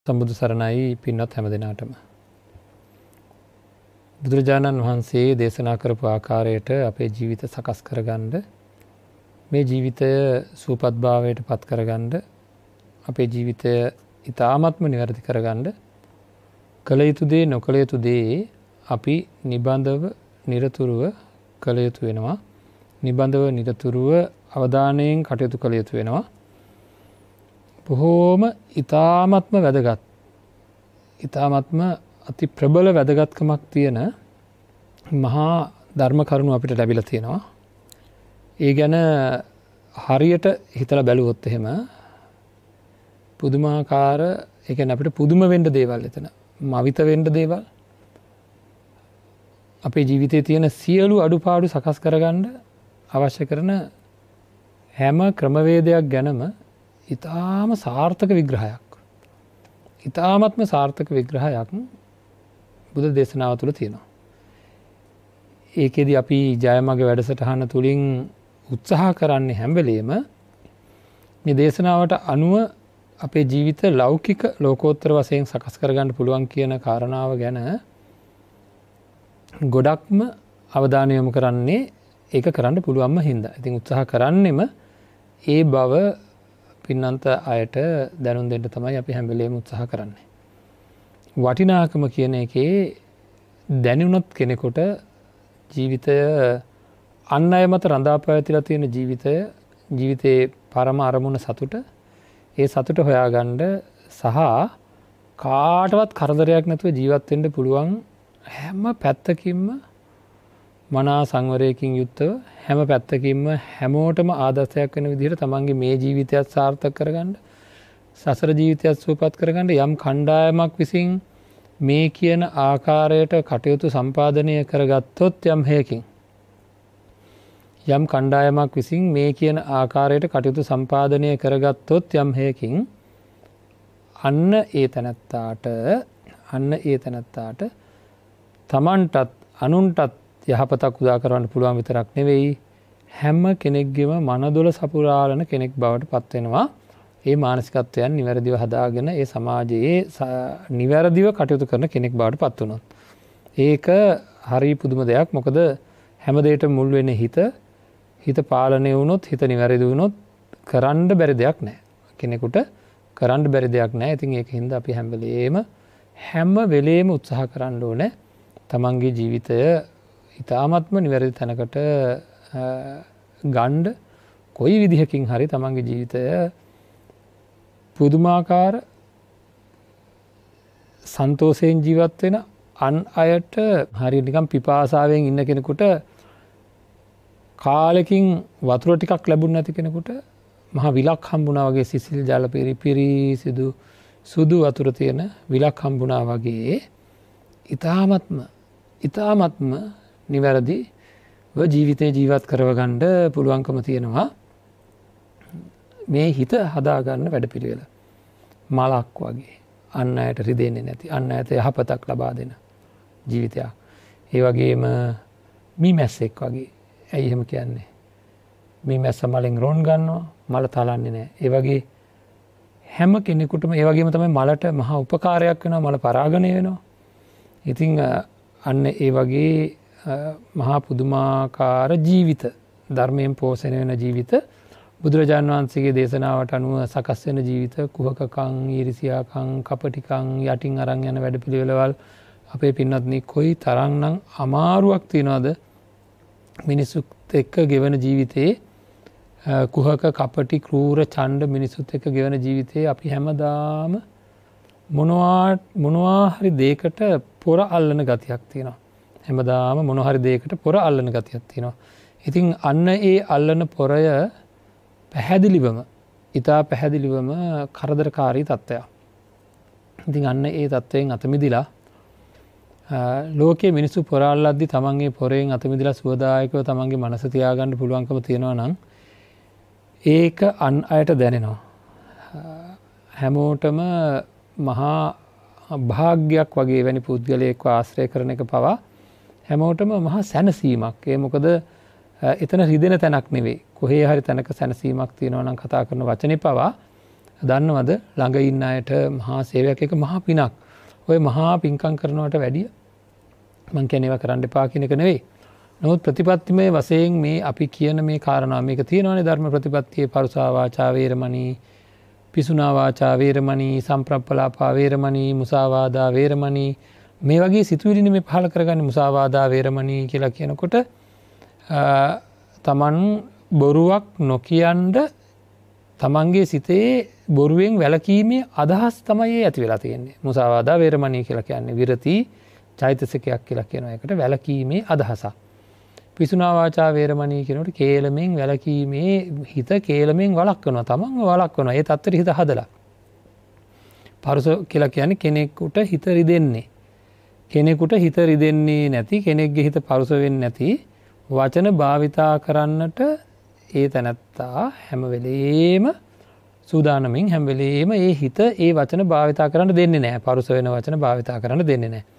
සම්බුදු සරණයි පින්වත් හැම දෙනාටම. බුදුරජාණන් වහන්සේ දේශනා කරපු ආකාරයට අපේ ජීවිත සකස් කරගන්න, මේ ජීවිතය සුවපත් භාවයට පත් කරගන්න, අපේ ජීවිතය ඉතාමත්ම නිවැරදි කරගන්න කළ යුතු දේ නොකළ යුතු දේ අපි නිබඳව නිරතුරුව කළ යුතු වෙනවා. නිබඳව නිරතුරුව අවධානයෙන් කටයුතු කළ යුතු වෙනවා. බොහෝම ඉතාමත්ම වැදගත්, ඉතාමත්ම අති ප්‍රබල වැදගත්කමක් තියෙන මහා ධර්ම කරුණු අපිට ලැබිලා තියෙනවා. ඒ ගැන හරියට හිතලා බැලුවොත් එහෙම පුදුමාකාර, ඒ කියන්නේ අපිට පුදුම වෙන්න දේවල් එතන, මවිත වෙන්න දේවල්, අපේ ජීවිතයේ තියෙන සියලු අඩුපාඩු සකස් කරගන්න අවශ්‍ය කරන හැම ක්‍රමවේදයක් ගැනම ඉතාම සාර්ථක විග්‍රහයක්, ඉතාමත්ම සාර්ථක විග්‍රහයක් බුද්ධ දේශනාව තුළ තියෙනවා. ඒකෙදි අපි ජයමග වැඩසටහන තුලින් උත්සාහ කරන්නේ හැම වෙලෙම මේ දේශනාවට අනුව අපේ ජීවිත ලෞකික ලෝකෝත්තර වශයෙන් සකස් කරගන්න පුළුවන් කියන කාරණාව ගැන ගොඩක්ම අවධානය යොමු කරන්නේ ඒක කරන්න පුළුවන්ම හින්දා. ඉතින් උත්සාහ කරන්නෙම ඒ බව පින්නන්ත අයට දැනුම් දෙන්න තමයි අපි හැම වෙලේම උත්සාහ කරන්නේ. වටිනාකම කියන එකේ දැනුණොත් කෙනෙකුට ජීවිතය අන් අය මත රඳා පැවතිලා තියෙන ජීවිතය, ජීවිතයේ පරම අරමුණ සතුට, ඒ සතුට හොයාගන්න සහ කාටවත් කරදරයක් නැතුව ජීවත් වෙන්න පුළුවන් හැම පැත්තකින්ම මනා සංවරයකින් යුක්තව හැම පැත්තකින්ම හැමෝටම ආදර්ශයක් වෙන විදිහට තමන්ගේ මේ ජීවිතයත් සාර්ථක කරගන්න, සසර ජීවිතයත් සුවපත් කරගන්න යම් කණ්ඩායමක් විසින් මේ කියන ආකාරයට කටයුතු සම්පාදනය කරගත්තොත්, යම් හේකින් යම් කණ්ඩායමක් විසින් මේ කියන ආකාරයට කටයුතු සම්පාදනය කරගත්තොත් යම් හේකින් අන්න ඒ තැනැත්තාට, අන්න ඒ තැනැත්තාට තමන්ටත් අනුන්ටත් යහපතක් උදා කරවන්න පුළුවන් විතරක් නෙවෙයි, හැම කෙනෙක්ගේම මනදොල සපුරාලන කෙනෙක් බවට පත් වෙනවා. ඒ මානසිකත්වයන් නිවැරදිව හදාගෙන ඒ සමාජයේ නිවැරදිව කටයුතු කරන කෙනෙක් බවට පත් වුණොත් ඒක හරි පුදුම දෙයක්. මොකද හැම දෙයකටම මුල් වෙන්නේ හිත. හිත පාලනය වුණොත්, හිත නිවැරදි වුණොත් කරන්න බැරි දෙයක් නෑ. කෙනෙකුට කරන්න බැරි දෙයක් නෑ. ඉතින් ඒක හින්දා අපි හැම වෙලේම හැම වෙලේම උත්සාහ කරන්න ඕනේ තමන්ගේ ජීවිතය ඉතාමත්ම නිවැරදි තැනකට ගන්න. කොයි විදිහකින් හරි තමන්ගේ ජීවිතය පුදුමාකාර සන්තෝෂයෙන් ජීවත් වෙන, අන් අයට හරියට නිකන් පිපාසාවෙන් ඉන්න කෙනෙකුට කාලෙකින් වතුර ටිකක් ලැබුණ නැති කෙනෙකුට මහා විලක් හම්බුණා වගේ, සිසිල් ජල පිරිසිදු සුදු වතුර තියෙන විලක් හම්බුණා වගේ ඉතාමත්ම ඉතාමත්ම නිවැරදිව ජීවිතේ ජීවත් කරවගන්න පුළුවන්කම තියෙනවා මේ හිත හදාගන්න වැඩපිළිවෙල. මලක් වගේ අන් අයට රිදෙන්නේ නැති, අන් අයට යහපතක් ලබා දෙන ජීවිතයක්. ඒ වගේම මීමැස්සෙක් වගේ. ඇයි එහෙම කියන්නේ? මීමැස්ස මලෙන් රොන් ගන්නවා, මල තලන්නේ නැහැ. ඒ වගේ හැම කෙනෙකුටම ඒ වගේම තමයි මලට මහා උපකාරයක් වෙනවා, මල පරාගණය වෙනවා. ඉතින් අන්න ඒ වගේ මහා පුදුමාකාර ජීවිත, ධර්මයෙන් පෝෂණය වෙන ජීවිත, බුදුරජාණන් වහන්සේගේ දේශනාවට අනුව සකස් වෙන ජීවිත, කුහකකම්, ඊර්ෂියාකම්, කපටිකම් යටින් අරන් යන වැඩපිළිවෙළවල් අපේ පින්වත්නි කොයි තරම්නම් අමාරුවක් තියනවද මිනිසුත් එක්ක ගෙවන ජීවිතේ. කුහක, කපටි, ක්‍රූර, ඡණ්ඩ මිනිසුත් එක්ක ගෙවන ජීවිතේ අපි හැමදාම මොනවා හරි දෙයකට පොර අල්ලන ගතියක් තියෙනවා. හැමදාම මොනවා හරි දෙයකට පොර අල්ලන ගතියක් තියෙනවා. ඉතින් අන්න ඒ අල්ලන පොරය පැහැදිලිවම, ඉතා පැහැදිලිවම කරදරකාරී තත්ත්වයක්. ඉතින් අන්න ඒ තත්ත්වයෙන් අත මිදිලා ලෝකයේ මිනිස්සු පොර අල්ලද්දි තමන්ගේ පොරෙන් අත මිදලා සුවදායකව තමන්ගේ මනස තියාගන්න පුළුවන්කම තියෙනවා නම් ඒක අන් අයට දැනෙනවා. හැමෝටම මහා භාග්යක් වගේ වැනි පුද්ගලයෙක්ව ආශ්‍රය කරන එක පවා හැමෝටම මහා සැනසීමක්. ඒ මොකද එතන රිදෙන තැනක් නෙවෙයි. කොහේ හරි තැනක සැනසීමක් තියෙනවා නම් කතා කරන වචනේ පවා දන්නවද ළඟ ඉන්න අයට මහා සේවයක්, එක මහා පිනක්. ඔය මහා පින්කම් කරනවට වැඩිය මං කියන්නේ ඒවා කරන්න එපා කියන එක නෙවෙයි. නමුත් ප්‍රතිපත්තිමය වශයෙන් මේ අපි කියන මේ කාරණා මේක තියෙනවානේ ධර්ම ප්‍රතිපත්තියේ පරුසා වාචා වේරමණී, පිසුනා වාචා වේරමණී, සම්ප්‍රප්පලාපා වේරමණී, මුසාවාදා වේරමණී, මේ වගේ සිතුවිලිනේ මේ පහළ කරගන්නේ. මුසාවාදා වේරමණී කියලා කියනකොට තමන් බොරුවක් නොකියන්ඩ තමන්ගේ සිතේ බොරුවෙන් වැළකීමේ අදහස් තමයි ඒ ඇති වෙලා තියෙන්නේ. මුසාවාදා වේරමණී කියලා කියන්නේ විරති චෛතසිකයක් කියලා කියනවා. ඒකට වැළකීමේ අදහසක්. පිසුනා වාචා වේරමණී කියනකොට කේලමෙන් වැළකීමේ හිත කේලමෙන් වළක්වනවා, තමන්ව වළක්වනවා. ඒ තත්ත්වෙට හිත හදලා. පරුස කියලා කියන්නේ කෙනෙකුට හිත රිදෙන්නේ. කෙනෙකුට හිත රිදෙන්නේ නැති, කෙනෙක්ගේ හිත පරුස වෙන්නේ නැති වචන භාවිතා කරන්නට ඒ තැනැත්තා හැම වෙලේම සූදානමින් හැම වෙලේම ඒ හිත ඒ වචන භාවිතා කරන්න දෙන්නේ නැහැ. පරුස වෙන වචන භාවිතා කරන්න දෙන්නේ නැහැ.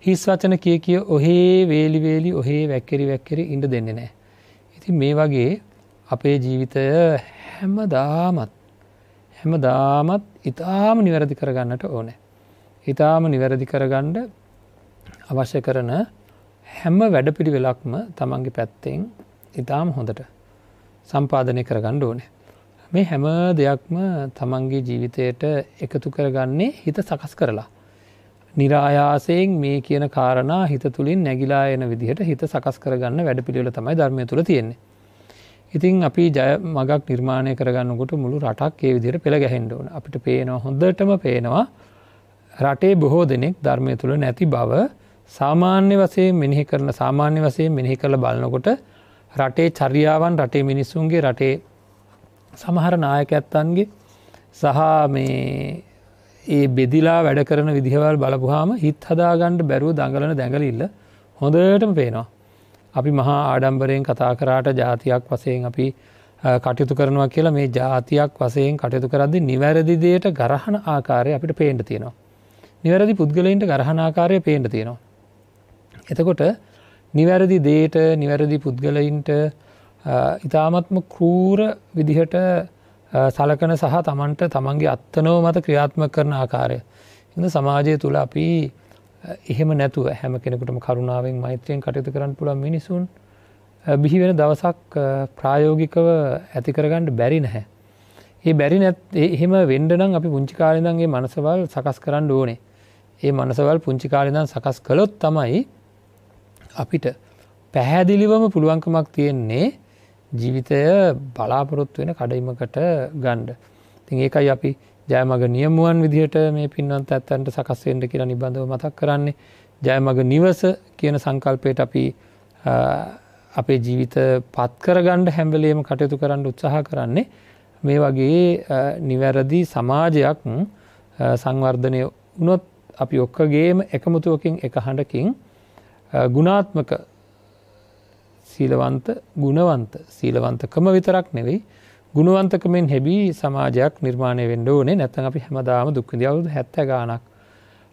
හිස් වචන කිය කිය ඔහේ වේලි වේලි ඔහේ වැක්කිරි වැක්කිරි ඉන්න දෙන්නේ නැහැ. ඉතින් මේ වගේ අපේ ජීවිතය හැමදාමත් ඉතාම නිවැරදි කරගන්නට ඕනේ. ඉතාම නිවැරදි කරගන්න අවශ්‍ය කරන හැම වැඩපිළිවෙලක්ම තමන්ගේ පැත්තෙන් ඉතාම හොඳට සම්පාදනය කරගන්න ඕනේ. මේ හැම දෙයක්ම තමන්ගේ ජීවිතයට එකතු කරගන්නේ හිත සකස් කරලා. නිරායාසයෙන් මේ කියන කාරණා හිත තුලින් නැగిලා එන විදිහට හිත සකස් කරගන්න වැඩපිළිවෙල තමයි ධර්මය තුල තියෙන්නේ. ඉතින් අපි ජය මගක් නිර්මාණය කරගන්නකොට මුළු රටක් ඒ විදිහට පෙළ ගැහෙන්න ඕන. අපිට පේනවා, හොඳටම පේනවා රටේ බොහෝ දෙනෙක් ධර්මය තුල නැති බව සාමාන්‍ය වශයෙන් මෙනෙහි කරන, සාමාන්‍ය වශයෙන් මෙනෙහි කරලා බලනකොට රටේ චර්යාවන්, රටේ මිනිස්සුන්ගේ, රටේ සමහර නායකයන්ගේ සහ මේ ඒ බෙදිලා වැඩ කරන විදිහවල් බලපුවාම හිත හදාගන්න බැරුව දඟලන දැඟලිල්ල හොඳටම පේනවා. අපි මහා ආඩම්බරයෙන් කතා කරාට ජාතියක් වශයෙන් අපි කටයුතු කරනවා කියලා මේ ජාතියක් වශයෙන් කටයුතු කරද්දී නිවැරදි දෙයට ගරහන ආකාරය අපිට පේන්න තියෙනවා. නිවැරදි පුද්ගලයින්ට ගරහන ආකාරය පේන්න තියෙනවා. එතකොට නිවැරදි දෙයට නිවැරදි පුද්ගලයින්ට ඉතාමත්ම ක්‍රූර විදිහට සලකන සහ තමන්ට තමන්ගේ අත්නෝ මත ක්‍රියාත්මක කරන ආකාරය. ඉතින් සමාජය තුල අපි එහෙම නැතුව හැම කෙනෙකුටම කරුණාවෙන් මෛත්‍රියෙන් කටයුතු කරන්න පුළුවන් මිනිසුන් බිහි වෙන දවසක් ප්‍රායෝගිකව ඇති කරගන්න බැරි නැහැ. ඒ බැරි එහෙම වෙන්න නම් අපි පුංචි කාලේ ඉඳන් මේ මනසවල් සකස් කරන්න ඕනේ. ඒ මනසවල් පුංචි කාලේ ඉඳන් සකස් කළොත් තමයි අපිට පැහැදිලිවම පුළුවන්කමක් තියෙන්නේ ජීවිතය බලාපොරොත්තු වෙන කඩයිමකට ගන්න. ඉතින් ඒකයි අපි ජයමග නියමුවන් විදිහට මේ පින්වන්ත ඇත්තන්ට සකස් වෙන්න කියලා නිබඳව මතක් කරන්නේ. ජයමග නිවස කියන සංකල්පයට අපි අපේ ජීවිත පත් කරගන්න හැම වෙලෙම කටයුතු කරන්න උත්සාහ කරන්නේ. මේ වගේ නිවැරදි සමාජයක් සංවර්ධනය වුණොත් අපි ඔක්කොගේම එකමුතුවකින් එක හඬකින් ගුණාත්මක සීලවන්ත ගුණවන්ත සීලවන්තකම විතරක් නෙවෙයි ගුණවන්තකමෙන් හැබි සමාජයක් නිර්මාණය වෙන්න ඕනේ. නැත්නම් අපි හැමදාම දුක් විඳි අවුරුදු 70 ගාණක්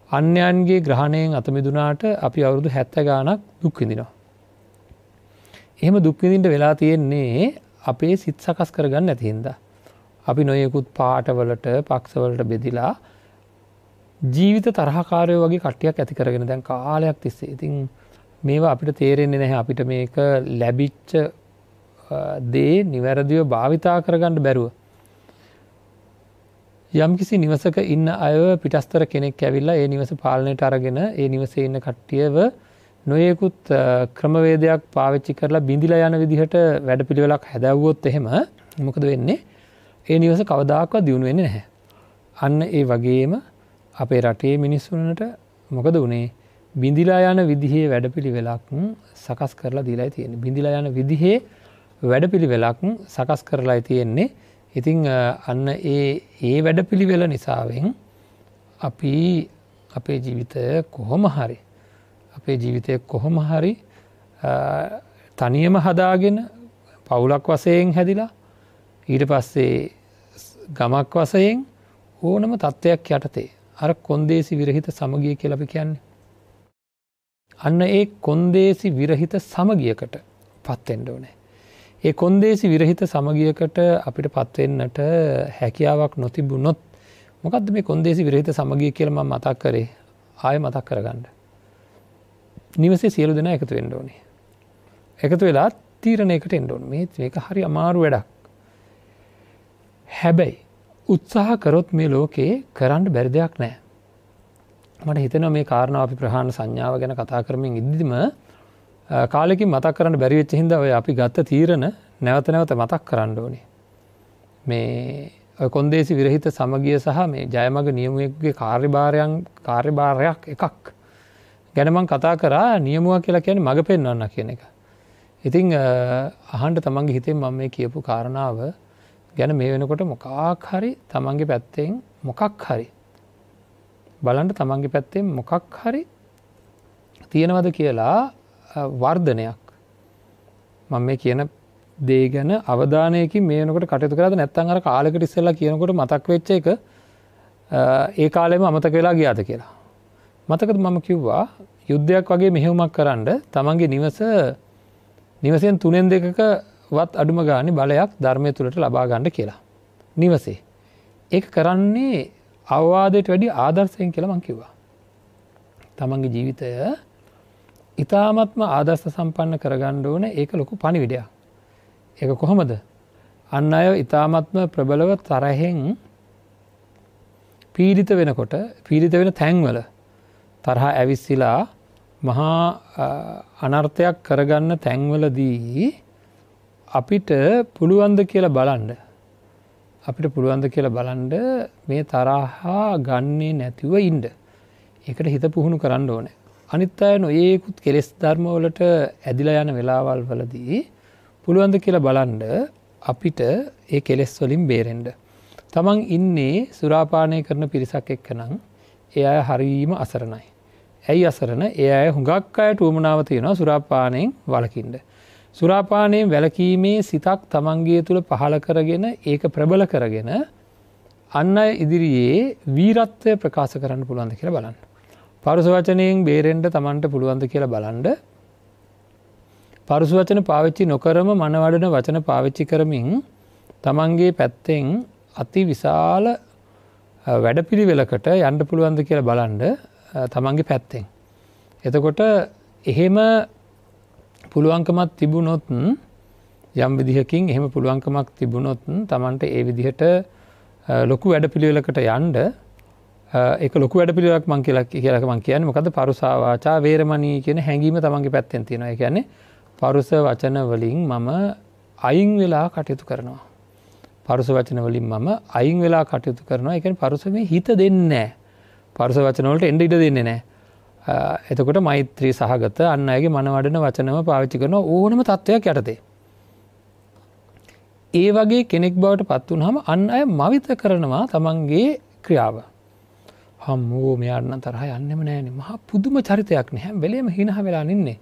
අන්‍යයන්ගේ ග්‍රහණයෙන් අත මිදුනාට අපි අවුරුදු 70 ගාණක් දුක් විඳිනවා. එහෙම දුක් විඳින්න වෙලා තියෙන්නේ අපේ සිත් සකස් කරගන්න නැති හින්දා. අපි නොයෙකුත් පාටවලට පක්ෂවලට බෙදිලා ජීවිත තරහකාරයෝ වගේ කට්ටියක් ඇති කරගෙන දැන් කාලයක් තිස්සේ. ඉතින් මේවා අපිට තේරෙන්නේ නැහැ. අපිට මේක ලැබිච්ච දේ නිවැරදිව භාවිතා කරගන්න බැරුව යම්කිසි නිවසක ඉන්න අයව පිටස්තර කෙනෙක් ඇවිල්ලා ඒ නිවස පාලනයට අරගෙන ඒ නිවසේ ඉන්න කට්ටියව නොයෙකුත් ක්‍රමවේදයක් පාවිච්චි කරලා බිඳිලා යන විදිහට වැඩපිළිවෙලක් හැදැව්වොත් එහෙම මොකද වෙන්නේ? ඒ නිවස කවදාකවත් දියුණු වෙන්නේ නැහැ. අන්න ඒ වගේම අපේ රටේ මිනිස්සුන්ට මොකද වුනේ? බිඳිලා යන විදිහේ වැඩපිළිවෙලක් සකස් කරලා දීලායි තියෙන්නේ. බිඳිලා යන විදිහේ වැඩපිළිවෙලක් සකස් කරලායි තියෙන්නේ. ඉතින් අන්න ඒ වැඩපිළිවෙල නිසාවෙන් අපි අපේ ජීවිතය කොහොම හරි අපේ ජීවිතය කොහොම හරි තනියම හදාගෙන පවුලක් වශයෙන් හැදිලා ඊට පස්සේ ගමක් වශයෙන් ඕනම තත්ත්වයක් යටතේ අර කොන්දේසි විරහිත සමගිය කියලා අපි කියන්නේ. අන්න ඒ කොන්දේසි විරහිත සමගියකට පත් වෙන්න ඕනේ. ඒ කොන්දේසි විරහිත සමගියකට අපිට පත් වෙන්නට හැකියාවක් නොතිබුණොත් මොකද්ද මේ කොන්දේසි විරහිත සමගිය කියලා මම මතක් කරේ? ආයෙ මතක් කරගන්න. නිවසේ සියලු දෙනා එකතු වෙන්න ඕනේ. එකතු වෙලා තීරණයකට එන්න ඕනේ. මේක හරි අමාරු වැඩක්. හැබැයි උත්සාහ කරොත් මේ ලෝකේ කරන්න බැරි දෙයක් නෑ. මට හිතෙනවා මේ කාරණාව අපි ප්‍රහාණ සංඥාව ගැන කතා කරමින් ඉද්දිම කාලෙකින් මතක් කරන්න බැරි වෙච්ච හින්දා ඔය අපි ගත්ත තීරණ නැවත නැවත මතක් කරන්න ඕනේ. මේ ඔය කොන්දේසි විරහිත සමගිය සහ මේ ජයමග නියමුවෙකුගේ කාර්යභාරයක් එකක් ගැන මං කතා කරා. නියමුවා කියලා කියන්නේ මඟ පෙන්වන්න කියන එක. ඉතින් අහන්න තමන්ගේ හිතෙන් මම මේ කියපු කාරණාව ගැන මේ වෙනකොට මොකක් හරි තමන්ගේ පැත්තෙන් මොකක් හරි බලන්න තමන්ගේ පැත්තෙන් මොකක් හරි තියෙනවද කියලා වර්ධනයක්. මම මේ කියන දේ ගැන අවධානයකින් මේ වෙනකොට කටයුතු කරාද නැත්නම් අර කාලෙකට ඉස්සෙල්ලා කියනකොට මතක් වෙච්ච එක ඒ කාලෙම අමතක වෙලා ගියාද කියලා. මතකද මම කිව්වා යුද්ධයක් වගේ මෙහෙයුමක් කරන්න තමන්ගේ නිවසෙන් 3න් 2ක වත් අඩුම ගානේ බලයක් ධර්මයේ තුලට ලබා ගන්න කියලා. නිවසේ. ඒක කරන්නේ අවවාදයට වැඩි ආදර්ශයෙන් කියලා මං කිව්වා. තමන්ගේ ජීවිතය ඉතාමත්ම ආදර්ශ සම්පන්න කරගන්න ඕනේ. ඒක ලොකු පණිවිඩයක්. ඒක කොහොමද? අන් අය ඉතාමත්ම ප්‍රබලව තරහෙන් පීඩිත වෙනකොට, පීඩිත වෙන තැන්වල තරහ ඇවිස්සিলা මහා අනර්ථයක් කරගන්න තැන්වලදී අපිට පුළුවන්ද කියලා බලන්න. අපිට පුළුවන්ද කියලා බලන්න මේ තරහා ගන්නේ නැතිව ඉන්න. ඒකට හිත පුහුණු කරන්න ඕනේ. අනිත් අය නොයේකුත් කෙලෙස් ධර්ම වලට ඇදිලා යන වෙලාවල් වලදී පුළුවන්ද කියලා බලන්න අපිට ඒ කෙලෙස් වලින් බේරෙන්න. තමන් ඉන්නේ සුරාපානය කරන පිරිසක් එක්ක නම් ඒ අය හරීම අසරණයි. ඇයි අසරණ? ඒ අය හුඟක් අයට උවමනාව තියෙනවා සුරාපානයෙන් වළකින්න. සුරාපානයෙන් වැළකීමේ සිතක් තමන්ගේ තුල පහළ කරගෙන ඒක ප්‍රබල කරගෙන අන් අය ඉදිරියේ වීරත්වය ප්‍රකාශ කරන්න පුළුවන්ද කියලා බලන්න. පරුස වචනයෙන් බේරෙන්න තමන්ට පුළුවන්ද කියලා බලන්න. පරුස වචන පාවිච්චි නොකරම මනවඩන වචන පාවිච්චි කරමින් තමන්ගේ පැත්තෙන් අති විශාල වැඩපිළිවෙලකට යන්න පුළුවන්ද කියලා බලන්න තමන්ගේ පැත්තෙන්. එතකොට එහෙම පුළුවන්කමක් තිබුණොත් යම් විදිහකින් එහෙම පුළුවන්කමක් තිබුණොත් තමන්ට ඒ විදිහට ලොකු වැඩපිළිවෙලකට යන්න, ඒක ලොකු වැඩපිළිවෙලක් මං කියලා මං කියන්නේ මොකද්ද? පරුසා වාචා වේරමණී කියන හැඟීම තමන්ගේ පැත්තෙන් තියෙනවා. ඒ කියන්නේ පරුස වචන වලින් මම අයින් වෙලා කටයුතු කරනවා. පරුස වචන වලින් මම අයින් වෙලා කටයුතු කරනවා. ඒ කියන්නේ පරුස මේ හිත දෙන්නේ නැහැ. පරුස වචන වලට එන්න ඉඩ දෙන්නේ නැහැ. එතකොට මෛත්‍රී සහගත අන් අයගේ මන වඩන වචනම පාවිච්චි කරන ඕනම තත්වයක් යටතේ. ඒ වගේ කෙනෙක් බවට පත් වුනහම අන් අය මවිත කරනවා තමන්ගේ ක්‍රියාව. හම්මෝ මෙයාට නම් තරහ යන්නෙම නෑනේ. මහා පුදුම චරිතයක් නේ. හැම වෙලේම හිනහ වෙලා නින්නේ.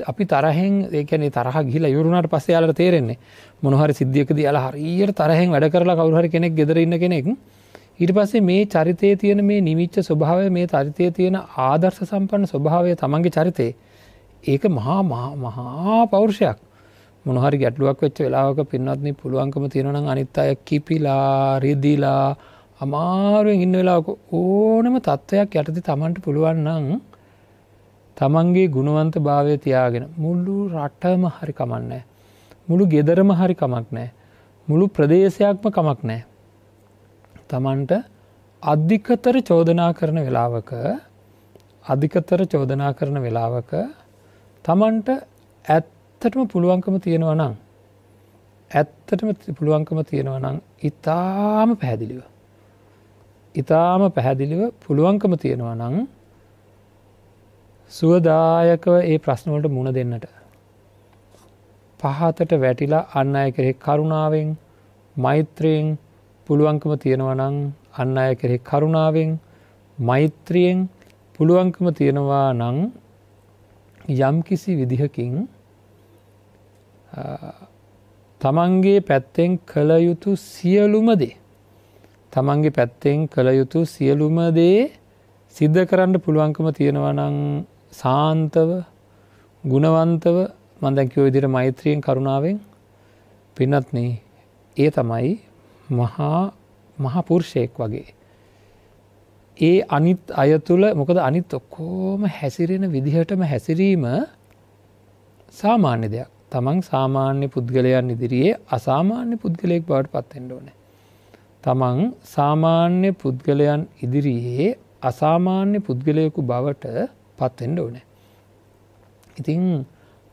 අපි තරහෙන්, ඒ කියන්නේ තරහ ගිහිලා ඉවර වුණාට පස්සේ යාලට තේරෙන්නේ මොන හරි සිද්ධියකදී යාලා හරියට තරහෙන් වැඩ කරලා කවුරු හරි කෙනෙක් ගෙදර ඉන්න කෙනෙක් ඊට පස්සේ මේ චරිතයේ තියෙන මේ නිවිච්ච ස්වභාවය, මේ චරිතයේ තියෙන ආදර්ශ සම්පන්න ස්වභාවය තමන්ගේ චරිතේ, ඒක මහා මහා පෞරුෂයක්. මොන හරි ගැටලුවක් වෙච්ච වෙලාවක පින්වත්නි පුළුවන්කම තියෙනවා නම් අනිත් අය කිපිලා රිදිලා අමාරුවෙන් ඉන්න වෙලාවක ඕනම තත්වයක් යටතේ තමන්ට පුළුවන් නම් තමන්ගේ ගුණවන්ත භාවය තියාගෙන මුළු රටම හරි කමක් නැහැ, මුළු ගෙදරම හරි කමක් නැහැ, මුළු ප්‍රදේශයක්ම කමක් නැහැ, තමන්ට අධිකතර චෝදනා කරන වෙලාවක, අධිකතර චෝදනා කරන වෙලාවක තමන්ට ඇත්තටම පුළුවන්කම තියෙනවා නම්, ඇත්තටම පුළුවන්කම තියෙනවා නම් ඊටාම පැහැදිලිව, ඊටාම පැහැදිලිව පුළුවන්කම තියෙනවා නම් සුවදායකව ඒ ප්‍රශ්න වලට මුහුණ දෙන්නට, පහතට වැටිලා අන් අය කෙරෙහි කරුණාවෙන් මෛත්‍රියෙන් පුළුවන්කම තියෙනවා නම්, අන් අය කෙරෙහි කරුණාවෙන් මෛත්‍රියෙන් පුළුවන්කම තියෙනවා නම් යම්කිසි විදිහකින් තමන්ගේ පැත්තෙන් කළ යුතු සියලුම දේ, තමන්ගේ පැත්තෙන් කළ යුතු සියලුම දේ සිද්ධ කරන්න පුළුවන්කම තියෙනවා නම් සාන්තව ගුණවන්තව මම දැන් කිව්ව විදිහට මෛත්‍රියෙන් කරුණාවෙන් පින්වත්නි, ඒ තමයි මහා පුරුෂයෙක් වගේ. ඒ අනිත් අය තුළ, මොකද අනිත් ඔක්කොම හැසිරෙන විදිහටම හැසිරීම සාමාන්‍ය දෙයක්. තමන් සාමාන්‍ය පුද්ගලයන් ඉදිරියේ අසාමාන්‍ය පුද්ගලයෙක් බවට පත් වෙන්න ඕනේ. තමන් සාමාන්‍ය පුද්ගලයන් ඉදිරියේ අසාමාන්‍ය පුද්ගලයෙකු බවට පත් වෙන්න ඕනේ. ඉතින්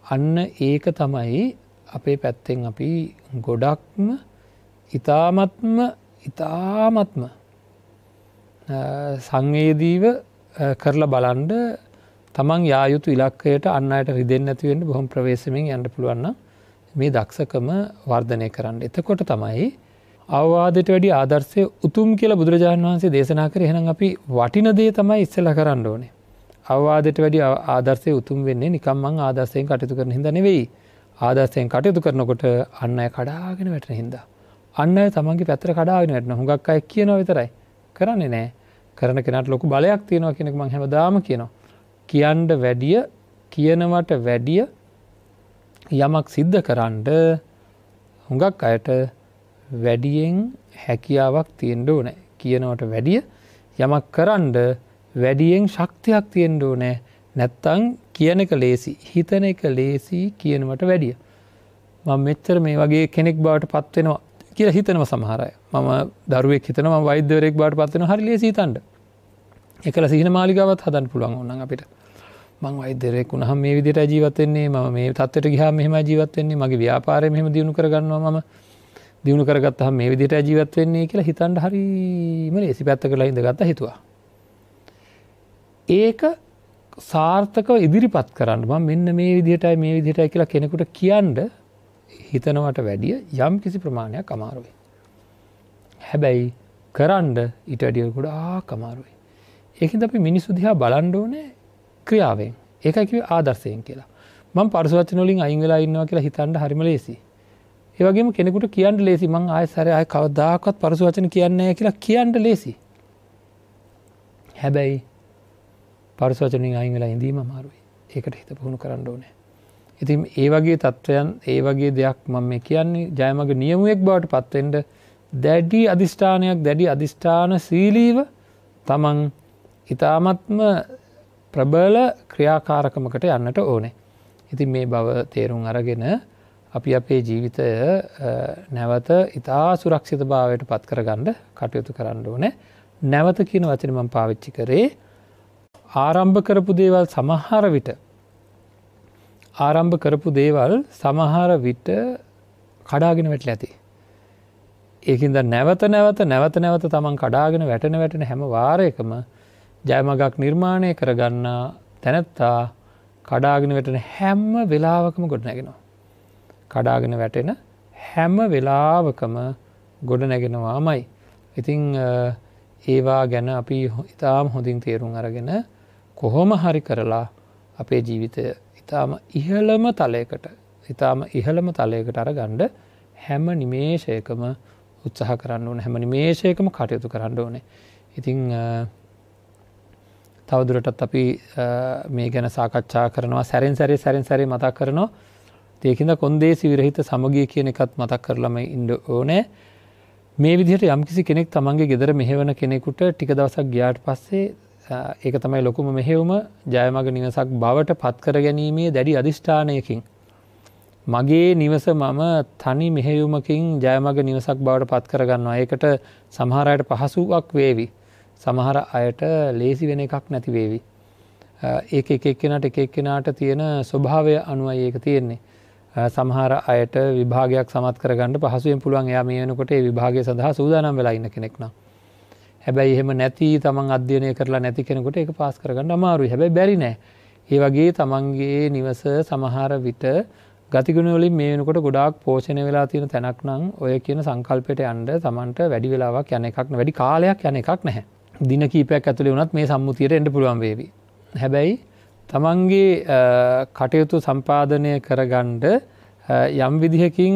අන්න ඒක තමයි අපේ පැත්තෙන් අපි ගොඩක්ම ඉතාමත්ම සංවේදීව කරලා බලන්න තමන් යා යුතු ඉලක්කයට අන් අයට රිදෙන්නේ නැති වෙන්න බොහොම ප්‍රවේශමෙන් යන්න පුළුවන් නම් මේ දක්ෂකම වර්ධනය කරන්න. එතකොට තමයි අවවාදයට වැඩි ආදර්ශය උතුම් කියලා බුදුරජාණන් වහන්සේ දේශනා කරේ. එහෙනම් අපි වටින දේ තමයි ඉස්සෙල්ලා කරන්න ඕනේ. අවවාදයට වැඩි ආදර්ශය උතුම් වෙන්නේ නිකම් මං ආදර්ශයෙන් කටයුතු කරන හින්දා නෙවෙයි. ආදර්ශයෙන් කටයුතු කරනකොට අන් අය කඩාගෙන වැටෙන හින්දා. අන් අය තමන්ගේ පැත්තට කඩාගෙන වැටෙනවා. හුඟක් අය කියනවා විතරයි. කරන්නේ නෑ. කරන කෙනාට ලොකු බලයක් තියෙනවා කියන එක මං හැමදාම කියනවා. කියන්න වැඩිය, කියනවට වැඩිය යමක් සිද්ධ කරන්න හුඟක් අයට වැඩියෙන් හැකියාවක් තියෙන්න ඕනේ. කියනවට වැඩිය යමක් කරන්න වැඩියෙන් ශක්තියක් තියෙන්න ඕනේ. නැත්තම් කියන එක ලේසි, හිතන එක ලේසි කියනවට වැඩිය. මම මෙච්චර මේ වගේ කෙනෙක් බවට පත් වෙනවා කියලා හිතනවා සමහර අය. මම දරුවෙක් හිතනවා මම වෛද්‍යවරයෙක් බවට පත් වෙනවා. හරි ලේසි හිතන්න. ඒකල සිහින මාලිගාවත් හදන්න පුළුවන් ඕනනම් අපිට. මං වෛද්‍යවරයෙක් වුණාම මේ විදිහටයි ජීවත් වෙන්නේ, මම මේ තත්ත්වයට ගියාම මෙහෙමයි ජීවත් වෙන්නේ, මගේ ව්‍යාපාරය මෙහෙම දියුණු කරගන්නවා, මම දියුණු කරගත්තාම මේ විදිහටයි ජීවත් වෙන්නේ කියලා හිතන්න හරිම ලේසි. පැත්තකලා ඉඳගත්තා හිතුවා. ඒක සාර්ථකව ඉදිරිපත් කරන්න මම මෙන්න මේ විදිහටයි මේ විදිහටයි කියලා කෙනෙකුට කියන්න හිතනවට වැඩිය යම් කිසි ප්‍රමාණයක් අමාරුයි. හැබැයි කරන්න ඊට වැඩිය ගොඩාක් අමාරුයි. ඒකින්ද අපි මිනිස්සු දිහා බලන්න ඕනේ ක්‍රියාවෙන්. ඒකයි කිව්වේ ආදර්ශයෙන් කියලා. මම පරස වචන වලින් අයින් වෙලා ඉන්නවා කියලා හිතන්න හරිම ලේසි. ඒ වගේම කෙනෙකුට කියන්න ලේසි මං ආයෙ සැරේ ආයෙ කවදාකවත් පරස වචන කියන්නේ නැහැ කියලා කියන්න ලේසි. හැබැයි පරස වචන වලින් අයින් වෙලා ඉඳීම අමාරුයි. ඒකට හිත පුහුණු කරන්න ඕනේ. ඉතින් ඒ වගේ තත්ත්වයන්, ඒ වගේ දෙයක් මම මේ කියන්නේ ජයමග නියමුවෙක් බවට පත් වෙන්න දැඩි අදිෂ්ඨානයක්, දැඩි අදිෂ්ඨානශීලීව තමන් ඉතාමත්ම ප්‍රබල ක්‍රියාකාරකමකට යන්නට ඕනේ. ඉතින් මේ බව තේරුම් අරගෙන අපි අපේ ජීවිතය නැවත ඉතා සුරක්ෂිත භාවයට පත් කරගන්න කටයුතු කරන්න ඕනේ. නැවත කියන වචනේ මම පාවිච්චි කරේ ආරම්භ කරපු දේවල් සමහර විට ආරම්භ කරපු දේවල් සමහර විට කඩාගෙන වැටලා ඇති. ඒකින්ද නැවත නැවත නැවත නැවත තමන් කඩාගෙන වැටෙන වැටෙන හැම වාරයකම ජයමගක් නිර්මාණය කරගන්න තැනැත්තා කඩාගෙන වැටෙන හැම වෙලාවකම ගොඩ නැගෙනවා. කඩාගෙන වැටෙන හැම වෙලාවකම ගොඩ නැගෙනවාමයි. ඉතින් ඒවා ගැන අපි ඉතාම හොඳින් තේරුම් අරගෙන කොහොම හරි කරලා අපේ ජීවිතය ඉතාම ඉහළම තලයකට, ඉතාම ඉහළම තලයකට අරගන්න හැම නිමේෂයකම උත්සාහ කරන්න ඕනේ, හැම නිමේෂයකම කටයුතු කරන්න ඕනේ. ඉතින් තවදුරටත් අපි මේ ගැන සාකච්ඡා කරනවා, සැරෙන් සැරේ සැරෙන් සැරේ මතක් කරනවා. ඒකින්ද කොන්දේසි විරහිත සමගිය කියන එකත් මතක් කරලම ඉන්න ඕනේ. මේ විදිහට යම්කිසි කෙනෙක් තමන්ගේ ගෙදර මෙහෙවන කෙනෙකුට ටික දවසක් ගියාට පස්සේ ඒක තමයි ලොකුම මෙහෙයුම, ජයමග නිවසක් බවට පත් කර ගැනීමේ දැඩි අදිෂ්ඨානයකින් මගේ නිවස මම තනි මෙහෙයුමකින් ජයමග නිවසක් බවට පත් කරගන්නවා. ඒකට සමහර අයට පහසුවක් වේවි, සමහර අයට ලේසි වෙන එකක් නැති වේවි. ඒක එක එක්කෙනාට එක එක්කෙනාට තියෙන ස්වභාවය අනුවයි ඒක තියෙන්නේ. සමහර අයට විභාගයක් සමත් කරගන්න පහසුවෙන් පුළුවන්, එයා මේ වෙනකොට ඒ විභාගය සඳහා සූදානම් වෙලා ඉන්න කෙනෙක් නම්. හැබැයි එහෙම නැති තමන් අධ්‍යයනය කරලා නැති කෙනෙකුට ඒක පාස් කරගන්න අමාරුයි. හැබැයි බැරි නෑ. ඒ වගේ තමන්ගේ නිවස සමහර විට ගතිගුණ වලින් මේ වෙනකොට ගොඩාක් පෝෂණය වෙලා තියෙන තැනක් නම් ඔය කියන සංකල්පයට යන්න තමන්ට වැඩි වෙලාවක් යන එකක් නෑ, වැඩි කාලයක් යන එකක් නැහැ. දින කීපයක් ඇතුලේ වුණත් මේ සම්මුතියට එන්න පුළුවන් වේවි. හැබැයි තමන්ගේ කටයුතු සම්පාදනය කරගන්න යම් විදිහකින්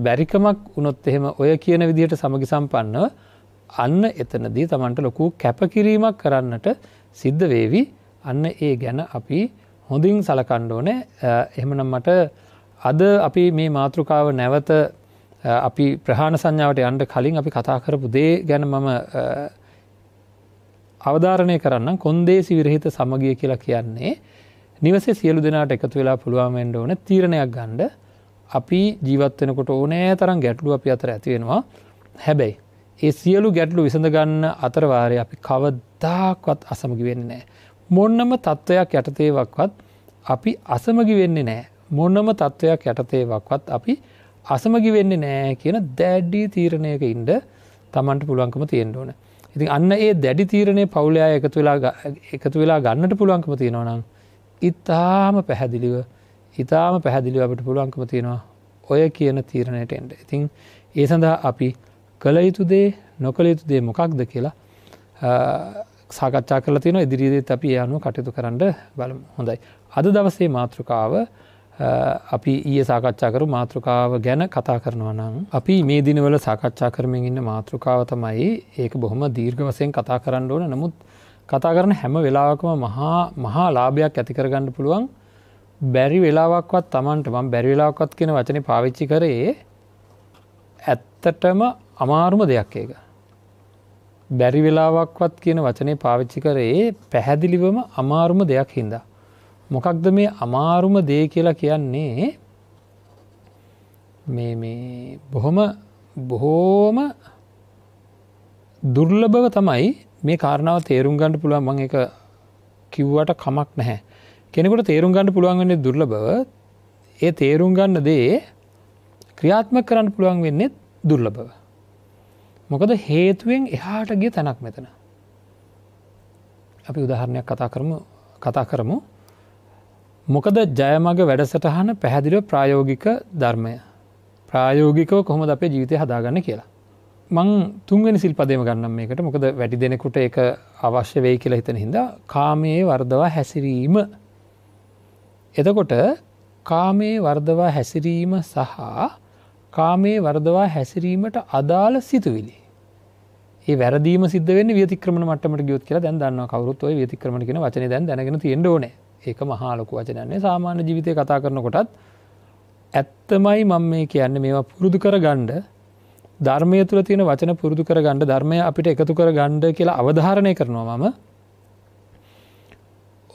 බැරිකමක් වුණොත් එහෙම ඔය කියන විදිහට සමගි සම්පන්නව අන්න එතනදී තමන්ට ලොකු කැපකිරීමක් කරන්නට සිද්ධ වේවි. අන්න ඒ ගැන අපි හොඳින් සලකන්න ඕනේ. එහෙමනම් මට අද අපි මේ මාතෘකාව නැවත අපි ප්‍රහාණ සංඥාවට යන්න කලින් අපි කතා කරපු දේ ගැන මම අවධාරණය කරන්නම්. කොන්දේසි විරහිත සමගිය කියලා කියන්නේ නිවසේ සියලු දෙනාට එකතු වෙලා පුළුවන් වෙන්න ඕන තීරණයක් ගන්න. අපි ජීවත් වෙනකොට ඕනෑ තරම් ගැටලු අපි අතර ඇති වෙනවා. හැබැයි ඒ සියලු ගැටලු විසඳ ගන්න අතර වාරේ අපි කවදාකවත් අසමගි වෙන්නේ නැහැ. මොනම තත්වයක් යටතේවත් අපි අසමගි වෙන්නේ නැහැ. මොනම තත්වයක් යටතේවත් අපි අසමගි වෙන්නේ නැහැ කියන දැඩි තීරණයක ඉන්න Tamanට පුළුවන්කම තියෙන්න ඕන. ඉතින් අන්න ඒ දැඩි තීරණය පවුලේ අය එකතු වෙලා ගන්නට පුළුවන්කම තියෙනවා නම් ඉතාම පැහැදිලිව අපිට පුළුවන්කම තියෙනවා ඔය කියන තීරණයට එන්න. ඉතින් ඒ සඳහා අපි කළ යුතු දේ නොකළ යුතු දේ මොකක්ද කියලා සාකච්ඡා කරලා තියෙනවා. ඉදිරියේදීත් අපි ඒ අනුව කටයුතු කරන්න බලමු. හොඳයි. අද දවසේ මාතෘකාව අපි ඊයේ සාකච්ඡා කරපු මාතෘකාව ගැන කතා කරනවා නම් අපි මේ දිනවල සාකච්ඡා කරමින් ඉන්න මාතෘකාව තමයි, ඒක බොහොම දීර්ඝ වශයෙන් කතා කරන්න ඕන. නමුත් කතා කරන හැම වෙලාවකම මහා ලාභයක් ඇති කරගන්න පුළුවන්. බැරි වෙලාවක්වත් Tamanට, මම බැරි වෙලාවක්වත් කියන වචනේ පාවිච්චි කරේ ඇත්තටම අමාරුම දෙයක් ඒක. බැරි වෙලාවක්වත් කියන වචනේ පාවිච්චි කරේ පැහැදිලිවම අමාරුම දෙයක් හින්දා. මොකක්ද මේ අමාරුම දේ කියලා කියන්නේ? මේ මේ බොහොම දුර්ලභව තමයි මේ කාරණාව තේරුම් ගන්න පුළුවන්. මම ඒක කිව්වට කමක් නැහැ. කෙනෙකුට තේරුම් ගන්න පුළුවන් වෙන්නේ දුර්ලභව. ඒ තේරුම් ගන්න දේ ක්‍රියාත්මක කරන්න පුළුවන් වෙන්නේ දුර්ලභව. මොකද හේතුවෙන් එහාට ගිය තැනක් මෙතන. අපි උදාහරණයක් කතා කරමු. මොකද ජයමග වැඩසටහන පැහැදිලිව ප්‍රායෝගික ධර්මය. ප්‍රායෝගිකව කොහොමද අපේ ජීවිතය හදාගන්නේ කියලා. මං තුන්වෙනි සිල්පදේම ගන්නම් මේකට. මොකද වැඩි දෙනෙකුට ඒක අවශ්‍ය වෙයි කියලා හිතන හින්දා. කාමයේ වර්ධවා හැසිරීම. එතකොට කාමයේ වර්ධවා හැසිරීම සහ කාමයේ වර්ධවා හැසිරීමට අදාළ සිතුවිලි. ඒ වැරදීම සිද්ධ වෙන්නේ ව්‍යතික්‍රමන මට්ටමට ගියොත් කියලා දැන් දන්නවා කවුරුත්. ඔය ව්‍යතික්‍රමන කියන වචනේ දැන් දැනගෙන තියෙන්න ඕනේ. ඒක මහා ලොකු වචනයක් නේ. සාමාන්‍ය ජීවිතේ කතා කරනකොටත් ඇත්තමයි මම මේ කියන්නේ, මේවා පුරුදු කරගන්න, ධර්මය තුල තියෙන වචන පුරුදු කරගන්න, ධර්මය අපිට එකතු කරගන්න කියලා අවධාරණය කරනවා මම.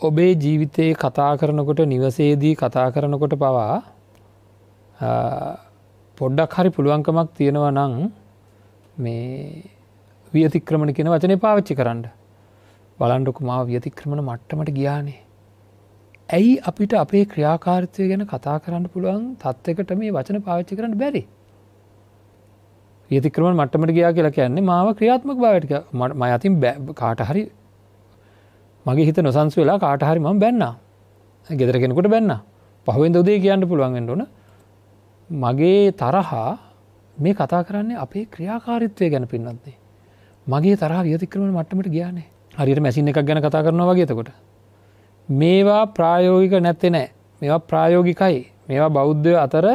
ඔබේ ජීවිතේ කතා කරනකොට, නිවසේදී කතා කරනකොට පවා පොඩ්ඩක් හරි පුළුවන්කමක් තියෙනවා නම් මේ ව්‍යතික්‍රමන කියන වචනේ පාවිච්චි කරන්න. බලන්නකො මාව ව්‍යතික්‍රමන මට්ටමට ගියානේ. ඇයි අපිට අපේ ක්‍රියාකාරීත්වය ගැන කතා කරන්න පුළුවන් තත්යකට මේ වචන පාවිච්චි කරන්න බැරි? ව්‍යතික්‍රමන මට්ටමට ගියා කියලා කියන්නේ මාව ක්‍රියාත්මක භාවයට ගියා. මම අතින් කාට හරි මගේ හිත නොසන්සු වෙලා කාට හරි මම බැන්නා. ගෙදර කෙනෙකුට බැන්නා. පහුවෙන්ද උදේ කියන්න පුළුවන් වෙන්න ඕන. මගේ තරහා මේ කතා කරන්නේ අපේ ක්‍රියාකාරීත්වය ගැන පින්වත්නි. මගේ තරහා ව්‍යතික්‍රමන මට්ටමට ගියානේ. හරියට මැෂින් එකක් ගැන කතා කරනවා වගේ. එතකොට මේවා ප්‍රායෝගික නැත්තේ නෑ. මේවා ප්‍රායෝගිකයි. මේවා බෞද්ධයෝ අතර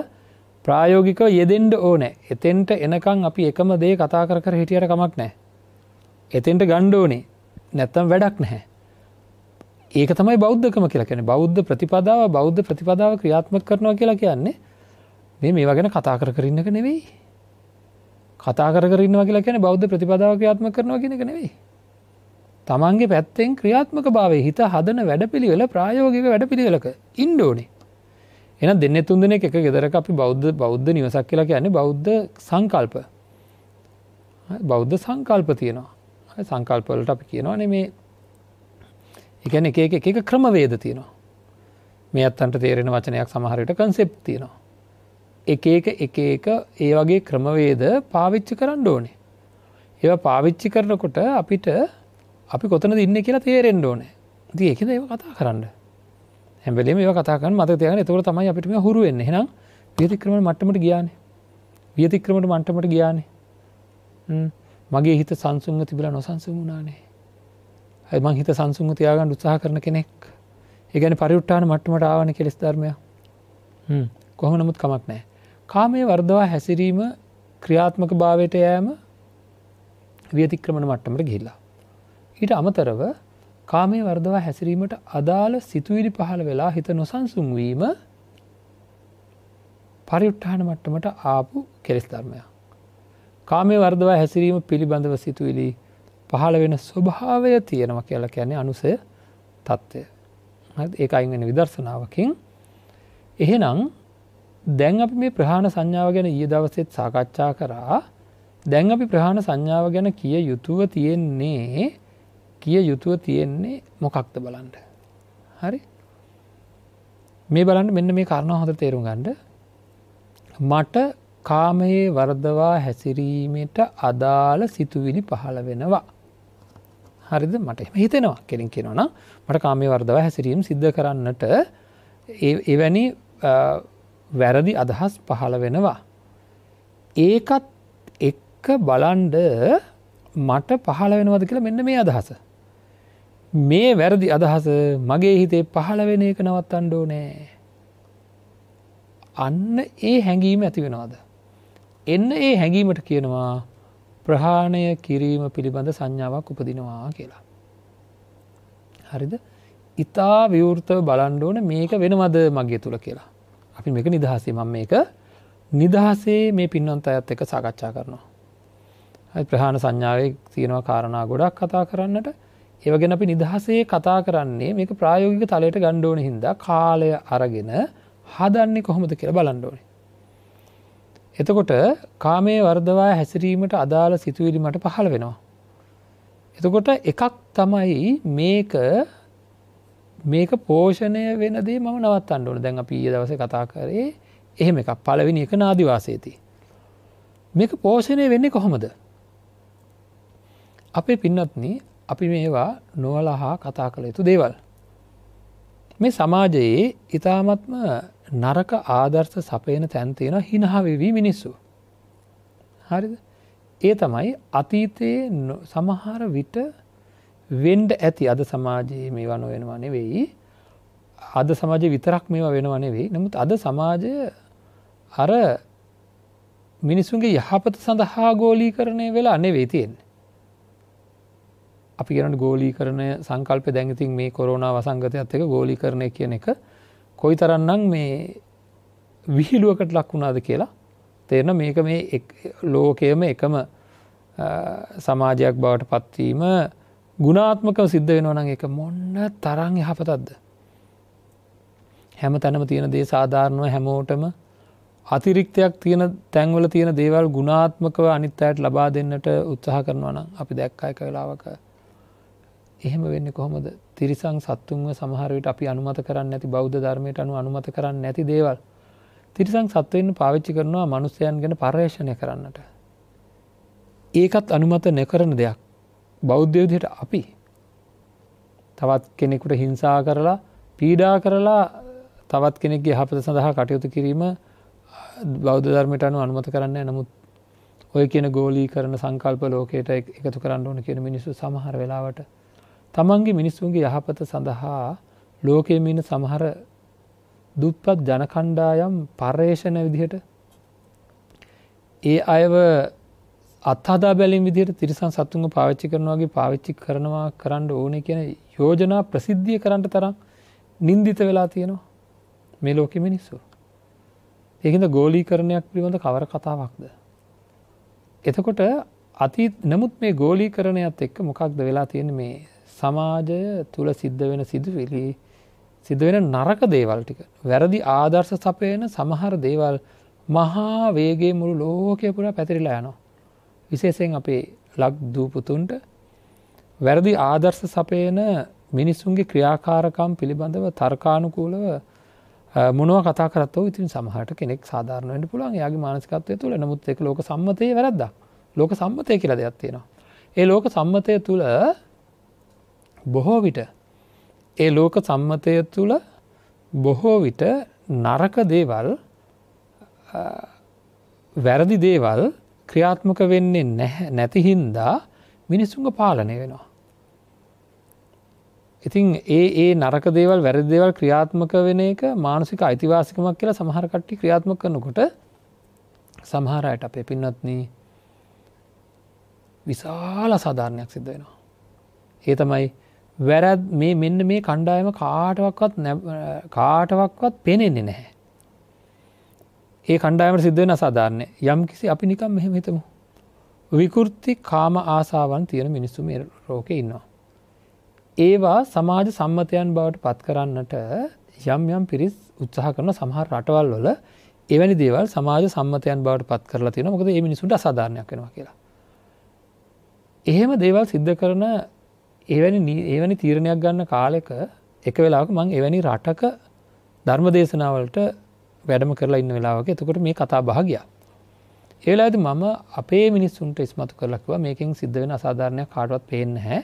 ප්‍රායෝගිකව යෙදෙන්න ඕනේ. එතෙන්ට එනකන් අපි එකම දේ කතා කර කර හිටියට කමක් නෑ. එතෙන්ට ගන්න ඕනේ. නැත්තම් වැඩක් නැහැ. ඒක තමයි බෞද්ධකම කියලා කියන්නේ. බෞද්ධ ප්‍රතිපදාව ක්‍රියාත්මක කරනවා කියලා කියන්නේ මේ මේවා ගැන කතා කර කර ඉන්න එක නෙවෙයි. කතා කර කර ඉන්නවා කියලා කියන්නේ බෞද්ධ ප්‍රතිපදාව ක්‍රියාත්මක කරනවා කියන එක නෙවෙයි. තමන්ගේ පැත්තෙන් ක්‍රියාත්මක භාවයේ හිත හදන වැඩපිළිවෙල ප්‍රායෝගික වැඩපිළිවෙලක ඉන්න ඕනේ. එහෙනම් දෙන්නේ තුන් දෙනෙක් එක ගෙදරක අපි බෞද්ධ නිවසක් කියලා කියන්නේ බෞද්ධ සංකල්ප. බෞද්ධ සංකල්ප තියෙනවා. සංකල්ප වලට අපි කියනවානේ මේ ඒ කියන්නේ එක එක එක එක ක්‍රමවේද තියෙනවා. මේ අත්තන්ට තේරෙන වචනයක් සමහර විට කන්සෙප්ට් තියෙනවා. එක එක එක එක ඒ වගේ ක්‍රමවේද පාවිච්චි කරන්න ඕනේ. ඒවා පාවිච්චි කරනකොට අපිට අපි කොතනද ඉන්නේ කියලා තේරෙන්න ඕනේ. ඉතින් ඒකෙන්ද ඒවා කතා කරන්න. හැම වෙලේම ඒවා කතා කරන්න මතක තියාගන්න. එතකොට තමයි අපිට මේවා හුරු වෙන්නේ. එහෙනම් ව්‍යතික්‍රමන මට්ටමට ගියානේ. ව්‍යතික්‍රමන මට්ටමට ගියානේ. මගේ හිත සංසුන්ව තිබිලා නොසන්සුන් වුණානේ. අය මං හිත සංසුන්ව තියාගන්න උත්සාහ කරන කෙනෙක්. ඒ කියන්නේ පරිඋත්ථාන මට්ටමට ආවනේ කෙලෙස් ධර්මය. කොහොම නමුත් කමක් නැහැ. කාමයේ වර්ධවා හැසිරීම ක්‍රියාත්මක භාවයට යෑම ව්‍යතික්‍රමන මට්ටමට ගිහිල්ලා. ඊට අමතරව කාමයේ වර්ධවා හැසිරීමට අදාළ සිතුවිලි පහළ වෙලා හිත නොසන්සුන් වීම පරිඋත්ථාන මට්ටමට ආපු කෙලෙස් ධර්මයක්. කාමයේ වර්ධවා හැසිරීම පිළිබඳව සිතුවිලි පහළ වෙන ස්වභාවය තියෙනවා කියලා කියන්නේ අනුසය තත්ත්වය. හරිද? ඒක අයින් වෙන විදර්ශනාවකින්. එහෙනම් දැන් අපි මේ ප්‍රහාණ සංඥාව ගැන ඊයේ දවසේත් සාකච්ඡා කරා. දැන් අපි ප්‍රහාණ සංඥාව ගැන කිය යුතුව තියෙන්නේ මොකක්ද බලන්න. හරි? මේ බලන්න මෙන්න මේ කාරණාව හොඳට තේරුම් ගන්න. මට කාමයේ වර්ධවා හැසිරීමට අදාළ සිතුවිලි පහළ වෙනවා. හරිද? මට එහෙම හිතෙනවා. කෙලින් කියනවා නම් මට කාමයේ වර්ධවා හැසිරීම සිද්ධ කරන්නට එවැනි වැරදි අදහස් පහළ වෙනවා. ඒකත් එක්ක බලන්ඩ මට පහළ වෙනවද කියලා මෙන්න මේ අදහස. මේ වැරදි අදහස මගේ හිතේ පහළ වෙන එක නවත්තන්න ඕනේ. අන්න ඒ හැඟීම ඇති වෙනවද? එන්න ඒ හැඟීමට කියනවා ප්‍රහාණය කිරීම පිළිබඳ සංඥාවක් උපදිනවා කියලා. හරිද? ඉතා විවෘතව බලන්න ඕනේ මේක වෙනවද මගේ තුල කියලා. අපි මේක නිදහසේ මම මේක නිදහසේ මේ පින්වන්ත අයත් එක්ක සාකච්ඡා කරනවා. හරි, ප්‍රහාණ සංඥාවේ තියෙනවා කාරණා ගොඩක් කතා කරන්නට. ඒව ගැන අපි නිදහසේ කතා කරන්නේ මේක ප්‍රායෝගික තලයට ගන්න ඕන හින්දා කාලය අරගෙන හදන්නේ කොහොමද කියලා බලන්න ඕනේ. එතකොට කාමයේ වර්ධවා හැසිරීමට අදාළ සිතුවිලි මට පහළ වෙනවා. එතකොට එකක් තමයි මේක පෝෂණය වෙන දේ මම නවත්තන්න ඕනේ. දැන් අපි ඊයේ දවසේ කතා කරේ එහෙම එකක්. පළවෙනි එක නාදි වාසයේදී. මේක පෝෂණය වෙන්නේ කොහොමද? අපේ පින්වත්නි, අපි මේවා නොවලහා කතා කළ යුතු දේවල්. මේ සමාජයේ ඉතාමත්ම නරක ආදර්ශ සපයන තැන් තියෙනවා හිනහ වෙවි මිනිස්සු. හරිද? ඒ තමයි අතීතයේ සමහර විට වෙන්න ඇති. අද සමාජයේ මේවා නොවෙනවා නෙවෙයි. අද සමාජයේ විතරක් මේවා වෙනවා නෙවෙයි. නමුත් අද සමාජය අර මිනිසුන්ගේ යහපත සඳහා ගෝලීකරණය වෙලා නෙවෙයි තියෙන්නේ. අපි කියනවනේ ගෝලීකරණය සංකල්පය දැන් ඉතින් මේ කොරෝනා වසංගතයත් එක්ක ගෝලීකරණය කියන එක කොයිතරම්නම් මේ විහිළුවකට ලක් වුණාද කියලා තේරෙන. මේක මේ ලෝකයේම එකම සමාජයක් බවට පත්වීම ගුණාත්මකව සිද්ධ වෙනවා නම් ඒක මොන තරම් යහපතක්ද? හැම තැනම තියෙන දේ සාධාරණව හැමෝටම අතිරික්තයක් තියෙන තැන්වල තියෙන දේවල් ගුණාත්මකව අනිත් අයට ලබා දෙන්නට උත්සාහ කරනවා නම් අපි දැක්කා එක වෙලාවක එහෙම වෙන්නේ කොහොමද? තිරිසන් සත්තුන්ව සමහර විට අපි අනුමත කරන්නේ නැති, බෞද්ධ ධර්මයට අනුව අනුමත කරන්නේ නැති දේවල් තිරිසන් සත්වයින් පාවිච්චි කරනවා මනුස්සයන් ගැන පර්යේෂණය කරන්නට. ඒකත් අනුමත නොකරන දෙයක්. බෞද්ධ විදිහට අපි තවත් කෙනෙකුට හිංසා කරලා පීඩා කරලා තවත් කෙනෙක්ගේ යහපත සඳහා කටයුතු කිරීම බෞද්ධ ධර්මයට අනුව අනුමත කරන්නේ නැහැ. නමුත් ඔය කියන ගෝලීකරණ සංකල්ප ලෝකයට එකතු කරන්න ඕන කියන මිනිස්සු සමහර වෙලාවට තමන්ගේ මිනිස්සුන්ගේ යහපත සඳහා ලෝකයේ ඉන්න සමහර දුප්පත් ජන කණ්ඩායම් පර්යේෂණ විදිහට ඒ අයව අත්හදා බැලීම් විදිහට තිරිසන් සත්තුන්ව පාවිච්චි කරනවා වගේ පාවිච්චි කරනවා කරන්න ඕනේ කියන යෝජනා ප්‍රසිද්ධිය කරන්න තරම් නින්දිත වෙලා තියෙනවා මේ ලෝකෙ මිනිස්සු. ඒකින්ද ගෝලීකරණයක් පිළිබඳ කවර කතාවක්ද? එතකොට නමුත් මේ ගෝලීකරණයත් එක්ක මොකක්ද වෙලා තියෙන්නේ? මේ සමාජය තුල සිද්ධ වෙන සිදුවිලි, සිද්ධ වෙන නරක දේවල් ටික, වැරදි ආදර්ශ සපයන සමහර දේවල් මහා වේගයෙන් මුළු ලෝකය පුරා පැතිරිලා යනවා. විශේෂයෙන් අපේ ලක් දූ පුතුන්ට වැරදි ආදර්ශ සපයන මිනිසුන්ගේ ක්‍රියාකාරකම් පිළිබඳව තර්කානුකූලව මොනවා කතා කරත් ඔව් ඉතින් සමහරට කෙනෙක් සාධාරණ වෙන්න පුළුවන් එයාගේ මානසිකත්වය තුළ. නමුත් ඒක ලෝක සම්මතයේ වැරද්දක්. ලෝක සම්මතය කියලා දෙයක් තියෙනවා. ඒ ලෝක සම්මතය තුළ බොහෝ විට ඒ ලෝක සම්මතය තුළ බොහෝ විට නරක දේවල්, වැරදි දේවල් ක්‍රියාත්මක වෙන්නේ නැති හින්දා මිනිසුන්ව පාලනය වෙනවා. ඉතින් ඒ නරක දේවල්, වැරදි දේවල් ක්‍රියාත්මක වෙන එක මානසික අයිතිවාසිකමක් කියලා සමහර කට්ටිය ක්‍රියාත්මක කරනකොට සමහර අයට අපේ පින්වත්නි විශාල අසාධාරණයක් සිද්ධ වෙනවා. ඒ තමයි වැරැද්ද මේ මෙන්න මේ කණ්ඩායම කාටවත් පේන්නේ නැහැ. ඒ කණ්ඩායමට සිද්ධ වෙන අසාධාරණය. යම් කිසි අපි නිකන් මෙහෙම හිතමු. විකෘති කාම ආසාවන් තියෙන මිනිස්සු මේ ලෝකේ ඉන්නවා. ඒවා සමාජ සම්මතයන් බවට පත් කරන්නට යම් යම් පිරිස් උත්සාහ කරන සමහර රටවල් වල එවැනි දේවල් සමාජ සම්මතයන් බවට පත් කරලා තියෙනවා. මොකද මේ මිනිසුන්ට අසාධාරණයක් වෙනවා කියලා. එහෙම දේවල් සිද්ධ කරන එවැනි තීරණයක් ගන්න කාලෙක එක වෙලාවක මං එවැනි රටක ධර්ම දේශනාවලට වැඩම කරලා ඉන්න වෙලාවක එතකොට මේ කතා බහ ගියා. ඒ වෙලාවේදී මම අපේ මිනිස්සුන්ට ඉස්මතු කරලා කිව්වා මේකෙන් සිද්ධ වෙන අසාධාරණයක් කාටවත් පේන්නේ නැහැ.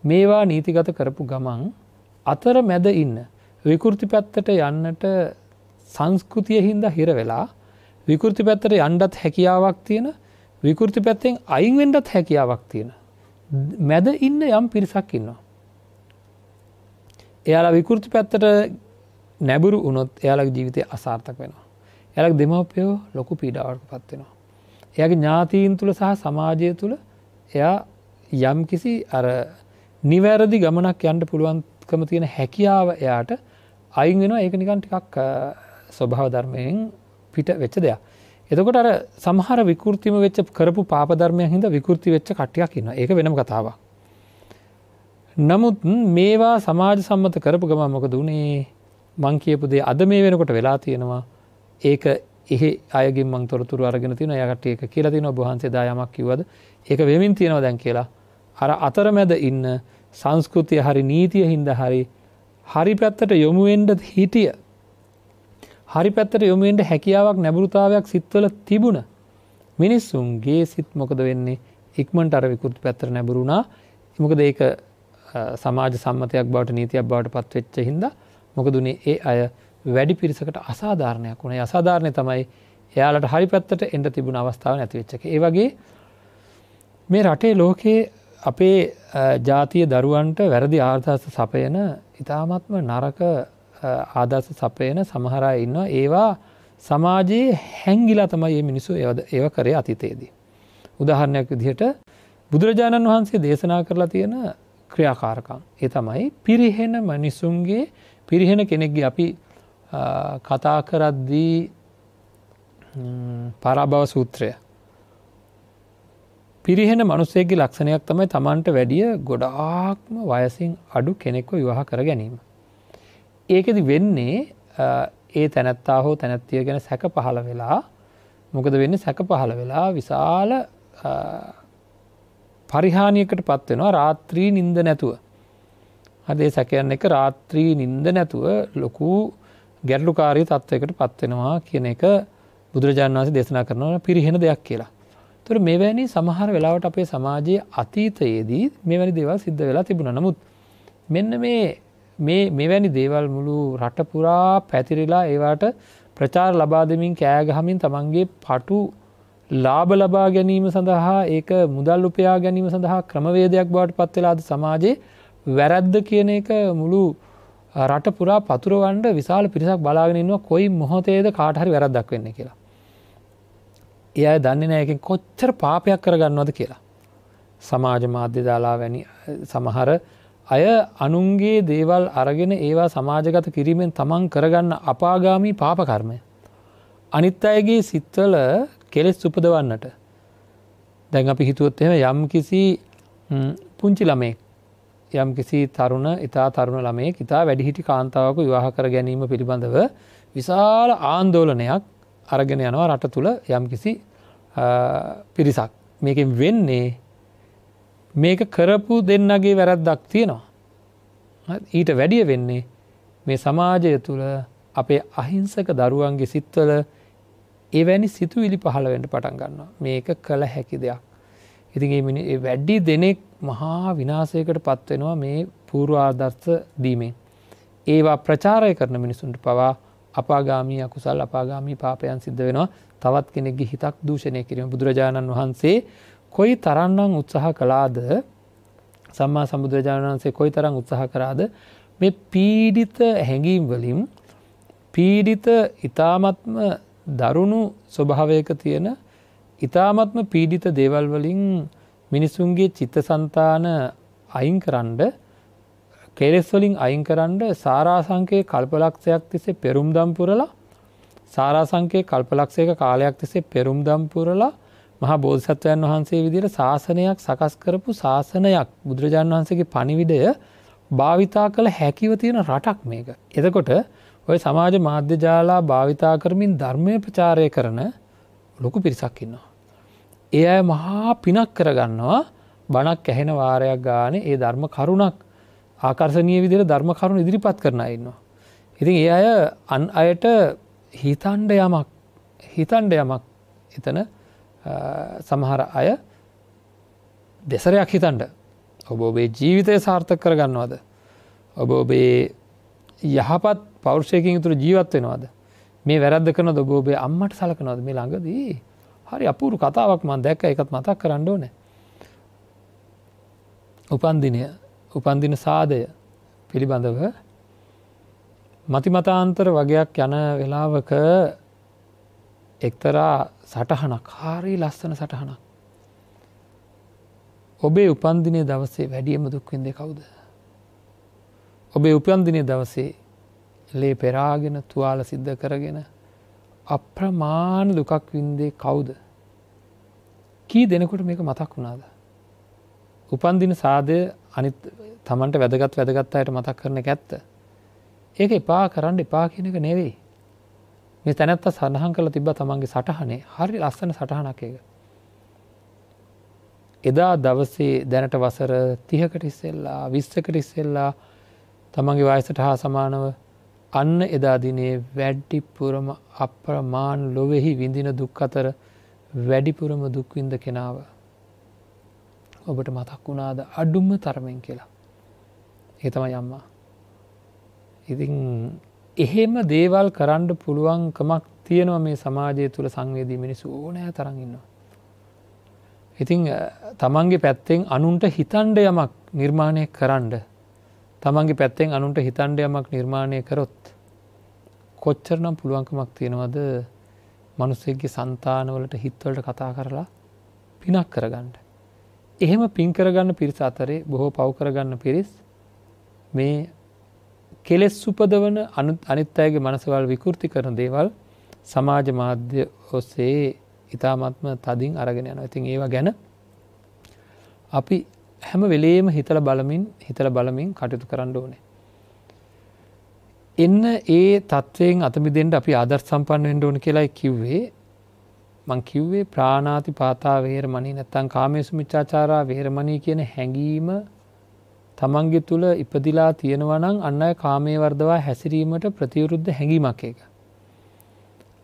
මේවා නීතිගත කරපු ගමන් අතර මැද ඉන්න විකෘති පැත්තට යන්නට සංස්කෘතිය හින්දා හිර වෙලා විකෘති පැත්තට යන්නත් හැකියාවක් තියෙන, විකෘති පැත්තෙන් අයින් වෙන්නත් හැකියාවක් තියෙන මැද ඉන්න යම් පිරිසක් ඉන්නවා. එයාලා විකෘති පැත්තට නැඹුරු වුණොත් එයාලගේ ජීවිතය අසාර්ථක වෙනවා. එයාලගේ දෙමව්පියෝ ලොකු පීඩාවකට පත් වෙනවා. එයාගේ ඥාතීන් තුල සහ සමාජය තුල එයා යම්කිසි අර නිවැරදි ගමනක් යන්න පුළුවන්කම තියෙන හැකියාව එයාට අයින් වෙනවා. ඒක නිකන් ටිකක් ස්වභාව ධර්මයෙන් පිට වෙච්ච දෙයක්. එතකොට අර සමහර විකෘතිම වෙච්ච කරපු පාප ධර්මයන් හින්දා විකෘති වෙච්ච කට්ටියක් ඉන්නවා. ඒක වෙනම කතාවක්. නමුත් මේවා සමාජ සම්මත කරපු ගමන් මොකද වුනේ? මං කියපු දේ අද මේ වෙනකොට වෙලා තියෙනවා. ඒක එහෙ අයගෙන් මං තොරතුරු අරගෙන තියෙනවා. එයා කට්ටිය ඒක කියලා තියෙනවා. ඔබ වහන්සේ දා යමක් කිව්වද? ඒක වෙමින් තියෙනවා දැන් කියලා. අර අතරමැද ඉන්න සංස්කෘතිය හරි නීතිය හින්දා හරි හරි පැත්තට යොමු වෙන්න හිටිය, හරි පැත්තට යොමු වෙන්න හැකියාවක් නැඹුරුතාවයක් සිත්වල තිබුණ මිනිස්සුන්ගේ සිත් මොකද වෙන්නේ? ඉක්මනට අර විකෘති පැත්තට නැඹුරු වුණා. මොකද ඒක සමාජ සම්මතයක් බවට නීතියක් බවට පත් වෙච්ච හින්දා මොකද උනේ? ඒ අය වැඩි පිරිසකට අසාධාරණයක් වුණා. ඒ අසාධාරණය තමයි එයාලට හරි පැත්තට එන්න තිබුණ අවස්ථාව නැති වෙච්ච එක. ඒ වගේ මේ රටේ ලෝකේ අපේ ජාතිය දරුවන්ට වැරදි ආදර්ශ සපයන, ඉතාමත්ම නරක ආදර්ශ සපයන සමහර අය ඉන්නවා. ඒවා සමාජයේ හැංගිලා තමයි මේ මිනිස්සු ඒව කරේ අතීතයේදී. උදාහරණයක් විදිහට බුදුරජාණන් වහන්සේ දේශනා කරලා තියෙන ක්‍රියාකාරකම්. ඒ තමයි පිරිහෙන මිනිසුන්ගේ, පිරිහෙන කෙනෙක්ගේ අපි කතා කරද්දී පරාභව සූත්‍රය. පිරිහෙන මිනිසෙක්ගේ ලක්ෂණයක් තමයි Tamanට වැඩිය ගොඩාක්ම වයසින් අඩු කෙනෙක්ව විවාහ කර ගැනීම. ඒකෙදි වෙන්නේ ඒ තැනැත්තා හෝ තැනැත්තිය ගැන සැක පහළ වෙලා මොකද වෙන්නේ? සැක පහළ වෙලා විශාල පරිහානියකට පත් වෙනවා රාත්‍රී නිින්ද නැතුව. හරි, ඒ සැකයන් එක රාත්‍රී නිින්ද නැතුව ලොකු ගැටලුකාරී තත්වයකට පත් වෙනවා කියන එක බුදුරජාණන් වහන්සේ දේශනා කරනවා පිරිහෙන දෙයක් කියලා. ඒතර මෙවැනි සමහර වෙලාවට අපේ සමාජයේ අතීතයේදී මෙවැනි දේවල් සිද්ධ වෙලා තිබුණා. නමුත් මෙන්න මේ මෙවැනි දේවල් මුළු රට පුරා පැතිරිලා ඒවාට ප්‍රචාර ලබා දෙමින් කෑ ගහමින් තමන්ගේ පටු ලාභ ලබා ගැනීම සඳහා ඒක මුදල් උපයා ගැනීම සඳහා ක්‍රමවේදයක් බවට පත් වෙලා අද සමාජයේ වැරද්ද කියන එක මුළු රට පුරා පතුරවන්න විශාල පිරිසක් බලාගෙන ඉන්නවා කොයි මොහොතේද කාට හරි වැරද්දක් වෙන්නේ කියලා. ඒ අය දන්නේ නැහැ ඒකෙන් කොච්චර පාපයක් කරගන්නවද කියලා. සමාජ මාධ්‍ය දාලා වැනි සමහර අය අනුන්ගේ දේවල් අරගෙන ඒවා සමාජගත කිරීමෙන් තමන් කරගන්න අපාගාමී පාප කර්මය. අනිත් අයගේ සිත්වල කෙලෙස් උපදවන්නට. දැන් අපි හිතුවොත් එහෙම යම් කිසි පුංචි ළමයෙක්, යම් කිසි තරුණ, ඉතා තරුණ ළමයෙක් ඉතා වැඩිහිටි කාන්තාවක විවාහ කර ගැනීම පිළිබඳව විශාල ආందోලනයක් අරගෙන යනවා රට තුල යම් කිසි පිරිසක්. මේකෙන් වෙන්නේ මේක කරපු දෙන්නගේ වැරද්දක් තියෙනවා. ඊට වැඩිය වෙන්නේ මේ සමාජය තුල අපේ අහිංසක දරුවන්ගේ සිත්වල එවැනි සිතුවිලි පහළ වෙන්න පටන් ගන්නවා. මේක කළ හැකි දෙයක්. ඉතින් මේ වැඩි දෙනෙක් මහා විනාශයකට පත් වෙනවා මේ පූර්ව ආදර්ශ දීමෙන්. ඒවා ප්‍රචාරය කරන මිනිසුන්ට පවා අපාගාමී අකුසල්, අපාගාමී පාපයන් සිද්ධ වෙනවා. තවත් කෙනෙක්ගේ හිතක් දූෂණය කිරීම. බුදුරජාණන් වහන්සේ කොයි තරම්නම් උත්සාහ කළාද, සම්මා සම්බුදුරජාණන් වහන්සේ කොයි තරම් උත්සාහ කරාද මේ පීඩිත හැඟීම් වලින්, පීඩිත ඊ타මත්ම දරුණු ස්වභාවයක තියෙන ඊ타මත්ම පීඩිත දේවල් වලින් මිනිසුන්ගේ චිත්තසංතාන අයින් කරන්න කෙලෙස් වලින් අයින් කරන්න සාරාංශකයේ කල්පලක්ෂයක් තිස්සේ පෙරුම්දම් පුරලා, සාරාංශකයේ කල්පලක්ෂයක කාලයක් තිස්සේ පෙරුම්දම් පුරලා මහා බෝධිසත්වයන් වහන්සේ විදිහට ශාසනයක් සකස් කරපු ශාසනයක්, බුදුරජාණන් වහන්සේගේ පණිවිඩය භාවිතා කළ හැකිව තියෙන රටක් මේක. එතකොට ඔය සමාජ මාධ්‍ය ජාලා භාවිතා කරමින් ධර්මය ප්‍රචාරය කරන ලොකු පිරිසක් ඉන්නවා. ඒ අය මහා පිනක් කරගන්නවා බණක් ඇහෙන වාරයක් ගානේ ඒ ධර්ම කරුණක් ආකර්ෂණීය විදිහට ධර්ම කරුණු ඉදිරිපත් කරන අය ඉන්නවා. ඉතින් ඒ අය අන් අයට හිතන්න යමක් එතන සමහර අය දෙසරයක් හිතන්න, ඔබ ඔබේ ජීවිතය සාර්ථක කරගන්නවද, ඔබ ඔබේ යහපත් පෞරුෂයකින් යුතුව ජීවත් වෙනවද, මේ වැරද්ද කරනවද, ඔබ ඔබේ අම්මට සලකනවද. මේ ළඟදී හරි අපූර්ව කතාවක් මම දැක්කා, ඒකත් මතක් කරන්න ඕනේ. උපන්දින සාදය පිළිබඳව මතිමතාන්තර වගයක් යන වෙලාවක එක්තරා සටහනක්, හරි ලස්සන සටහනක්. ඔබේ උපන්දිනයේ දවසේ වැඩියෙන්ම දුක් විඳේ කවුද? ඔබේ උපන්දිනයේ දවසේ ලේ පෙරාගෙන තුවාල සිද්ධ කරගෙන අප්‍රමාණ දුකක් වින්දේ කවුද? කී දෙනෙකුට මේක මතක් වුණාද? උපන්දින සාදය අනිත් Tamanට වැදගත් අයට මතක් කරන එක ඇත්ත. ඒක එපා කරන්න එපා කියන එක නෙවෙයි. මේ තැනැත්තා සඳහන් කරලා තිබ්බා තමන්ගේ සටහනේ හරි ලස්සන සටහනක් ඒක. එදා දවසේ දැනට වසර 30කට ඉස්සෙල්ලා 20කට ඉස්සෙල්ලා තමන්ගේ වයසට හා සමානව අන්න එදා දිනේ වැඩිපුරම අප්‍රමාණ ලොවෙහි විඳින දුක් අතර වැඩිපුරම දුක් විඳ කෙනාව ඔබට මතක් වුණාද අඩුම තරමින් කියලා. ඒ තමයි අම්මා. ඉතින් එහෙම දේවල් කරන්න පුළුවන්කමක් තියෙනවා මේ සමාජය තුළ සංවේදී මිනිස්සු ඕනෑ තරම් ඉන්නවා. ඉතින් තමන්ගේ පැත්තෙන් අනුන්ට හිතන්න යමක් නිර්මාණය කරන්න, තමන්ගේ පැත්තෙන් අනුන්ට හිතන්න යමක් නිර්මාණය කරොත් කොච්චරනම් පුළුවන්කමක් තියෙනවද මිනිස්සුන්ගේ సంతානවලට හිතවලට කතා කරලා පිනක් කරගන්න. එහෙම පින් කරගන්න පිරිස අතරේ බොහෝ පව් කරගන්න පිරිස් මේ කෙලෙස් උපදවන අනිත් අයගේ මනසවල් විකෘති කරන දේවල් සමාජ මාධ්‍ය ඔස්සේ ඉතාමත්ම තදින් අරගෙන යනවා. ඉතින් ඒවා ගැන අපි හැම වෙලේම හිතලා බලමින් කටයුතු කරන්න ඕනේ. එන්න ඒ තත්වයෙන් අත මිදෙන්න අපි ආදර්ශ සම්පන්න වෙන්න ඕන කියලායි කිව්වේ. මං කිව්වේ ප්‍රාණාති පාතා වේරමණී නැත්තම් කාමේසු මිච්ඡාචාරා වේරමණී කියන හැඟීම තමන්ගේ තුල ඉපදිලා තියෙනවා නම් අන්න අය කාමයේ වර්ධවා හැසිරීමට ප්‍රතිවිරුද්ධ හැඟීමක් ඒක.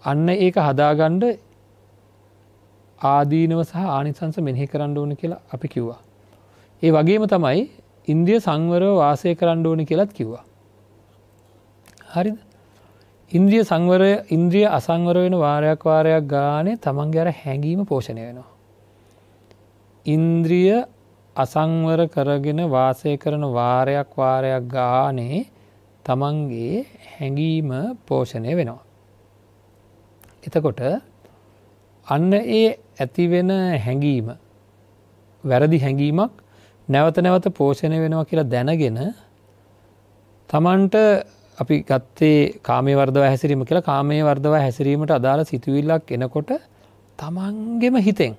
අන්න ඒක හදාගන්න ආදීනව සහ ආනිසංස මෙනෙහි කරන්න ඕන කියලා අපි කිව්වා. ඒ වගේම තමයි ඉන්ද්‍රිය සංවරව වාසය කරන්න ඕන කියලාත් කිව්වා. හරිද? ඉන්ද්‍රිය සංවරය, ඉන්ද්‍රිය අසංවර වෙන වාරයක් වාරයක් ගානේ තමන්ගේ අර හැඟීම පෝෂණය වෙනවා. ඉන්ද්‍රිය අසංවර කරගෙන වාසය කරන වාරයක් වාරයක් ගානේ තමන්ගේ හැඟීම පෝෂණය වෙනවා. එතකොට අන්න ඒ ඇති වෙන හැඟීම වැරදි හැඟීමක් නැවත නැවත පෝෂණය වෙනවා කියලා දැනගෙන තමන්ට අපි ගත්තේ කාමයේ වර්ධව හැසිරීම කියලා. කාමයේ වර්ධව හැසිරීමට අදාළ සිතුවිල්ලක් එනකොට තමන්ගෙම හිතෙන්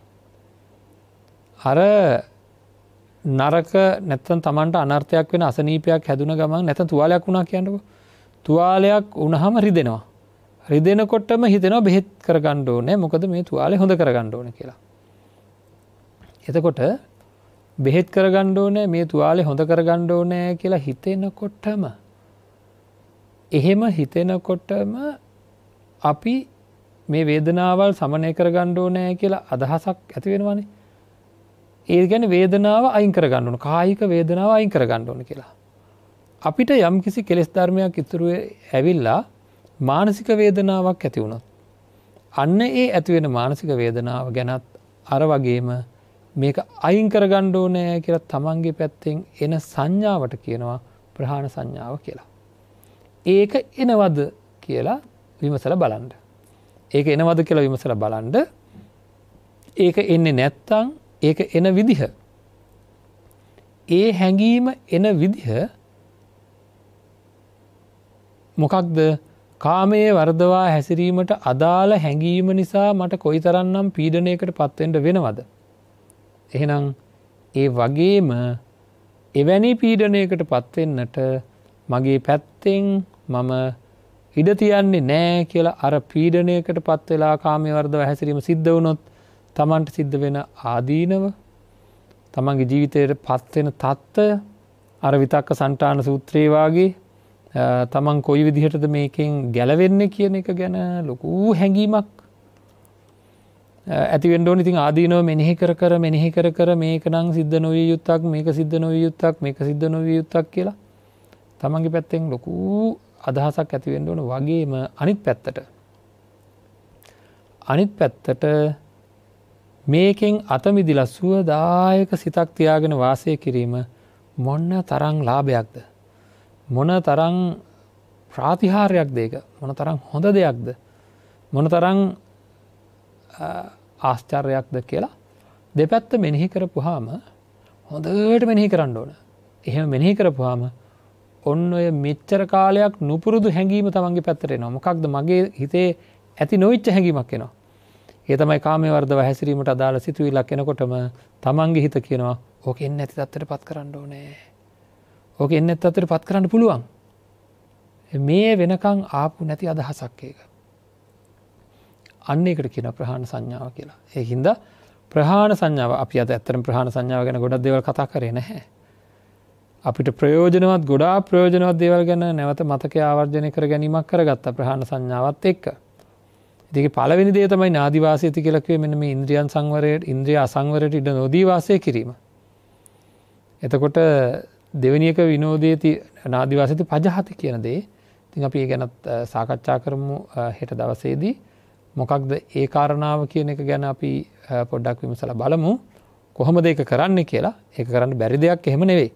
අර නරක නැත්තම් තමන්ට අනර්ථයක් වෙන අසනීපයක් හැදුන ගමන් නැත්තම් තුවාලයක් වුණා කියන්නකෝ. තුවාලයක් වුණාම රිදෙනවා. රිදෙනකොටම හිතෙනවා බෙහෙත් කරගන්න ඕනේ, මොකද මේ තුවාලේ හොඳ කරගන්න ඕනේ කියලා. එතකොට බෙහෙත් කරගන්න ඕනේ, මේ තුවාලේ හොඳ කරගන්න ඕනේ කියලා හිතෙනකොටම, එහෙම හිතෙනකොටම අපි මේ වේදනාවල් සමනය කරගන්න ඕනේ කියලා අදහසක් ඇති වෙනවනේ. ඒ කියන්නේ වේදනාව අයින් කරගන්න ඕන, කායික වේදනාව අයින් කරගන්න ඕන කියලා. අපිට යම්කිසි කෙලෙස් ධර්මයක් ඉතුරු ඇවිල්ලා මානසික වේදනාවක් ඇති වුණොත් අන්න ඒ ඇති වෙන මානසික වේදනාව ගැනත් අර වගේම මේක අයින් කරගන්න ඕනේ කියලා තමන්ගේ පැත්තෙන් එන සංඥාවට කියනවා ප්‍රහාණ සංඥාව කියලා. ඒක එනවද කියලා විමසලා බලන්න. ඒක එනවද කියලා විමසලා බලන්න. ඒක එන්නේ නැත්තම් ඒක එන විදිහ, ඒ හැඟීම එන විදිහ මොකක්ද? කාමයේ වර්ධවා හැසිරීමට අදාළ හැඟීම නිසා මට කොයිතරම්නම් පීඩනයකට පත් වෙන්න වෙනවද? එහෙනම් ඒ වගේම එවැනි පීඩනයකට පත් වෙන්නට මගේ පැත්තෙන් මම ඉඩ තියන්නේ නෑ කියලා අර පීඩනයකට පත් වෙලා කාමයේ වර්ධව හැසිරීම සිද්ධ වුණොත් තමන්ට සිද්ධ වෙන ආදීනව, තමන්ගේ ජීවිතයට පත් වෙන තත්ත්වය, අර විතක්ක සන්තාන සූත්‍රයේ වාගේ තමන් කොයි විදිහටද මේකෙන් ගැලවෙන්නේ කියන එක ගැන ලොකු හැඟීමක් ඇති වෙන්න ඕනේ. ඉතින් ආදීනව මෙනෙහි කර කර මෙනෙහි කර කර මේක නම් සිද්ධ නොවිය යුත්තක්, මේක සිද්ධ නොවිය යුත්තක්, මේක සිද්ධ නොවිය යුත්තක් කියලා තමන්ගේ පැත්තෙන් ලොකු අදහසක් ඇති වෙන්න ඕන. වගේම අනිත් පැත්තට මේකෙන් අත මිදිලා සුවදායක සිතක් තියාගෙන වාසය කිරීම මොන තරම් ලාභයක්ද, මොන තරම් ප්‍රාතිහාර්යයක්ද, ඒක මොන තරම් හොඳ දෙයක්ද, මොන තරම් ආශ්චර්යයක්ද කියලා දෙපැත්ත මෙනෙහි කරපුවාම හොඳට මෙනෙහි කරන්න ඕන. එහෙම මෙනෙහි කරපුවාම ඔන්න ඔය මෙච්චර කාලයක් නුපුරුදු හැඟීම තමන්ගේ පැත්තට එනවා. මොකක්ද? මගේ හිතේ ඇති නොවිච්ච හැඟීමක් එනවා. ඒ තමයි කාමයේ වර්ධව හැසිරීමට අදාළ සිතුවිල්ලක් එනකොටම තමන්ගේ හිත කියනවා ඕක එන්නේ නැති තත්ත්වයට පත් කරන්න ඕනේ. ඕක එන්නේ නැති තත්ත්වයට පත් කරන්න පුළුවන්. මේ වෙනකන් ආපු නැති අදහසක් ඒක. අන්න ඒකට කියනවා ප්‍රහාණ සංඥාව කියලා. ඒ හින්දා ප්‍රහාණ සංඥාව අපි අද ඇත්තටම ප්‍රහාණ සංඥාව ගැන ගොඩක් දේවල් කතා කරේ නැහැ. අපිට ප්‍රයෝජනවත් ගොඩාක් ප්‍රයෝජනවත් දේවල් ගැන නැවත මතකය ආවර්ජනය කර ගැනීමක් කරගත්තා ප්‍රහාණ සංඥාවත් එක්ක. ඉතින් ඒකේ පළවෙනි දේ තමයි නාදි වාසයති කියලා කිව්වේ මෙන්න මේ ඉන්ද්‍රියන් සංවරයට, ඉන්ද්‍රිය අසංවරයට ඉඩ නොදී වාසය කිරීම. එතකොට දෙවෙනි එක විනෝදයේති නාදි වාසයති පජහති කියන දේ. ඉතින් අපි ඒ ගැනත් සාකච්ඡා කරමු හෙට දවසේදී. මොකක්ද ඒ කාරණාව කියන එක ගැන අපි පොඩ්ඩක් විමසලා බලමු. කොහොමද ඒක කරන්නේ කියලා. ඒක කරන්න බැරි දෙයක් එහෙම නෙවෙයි.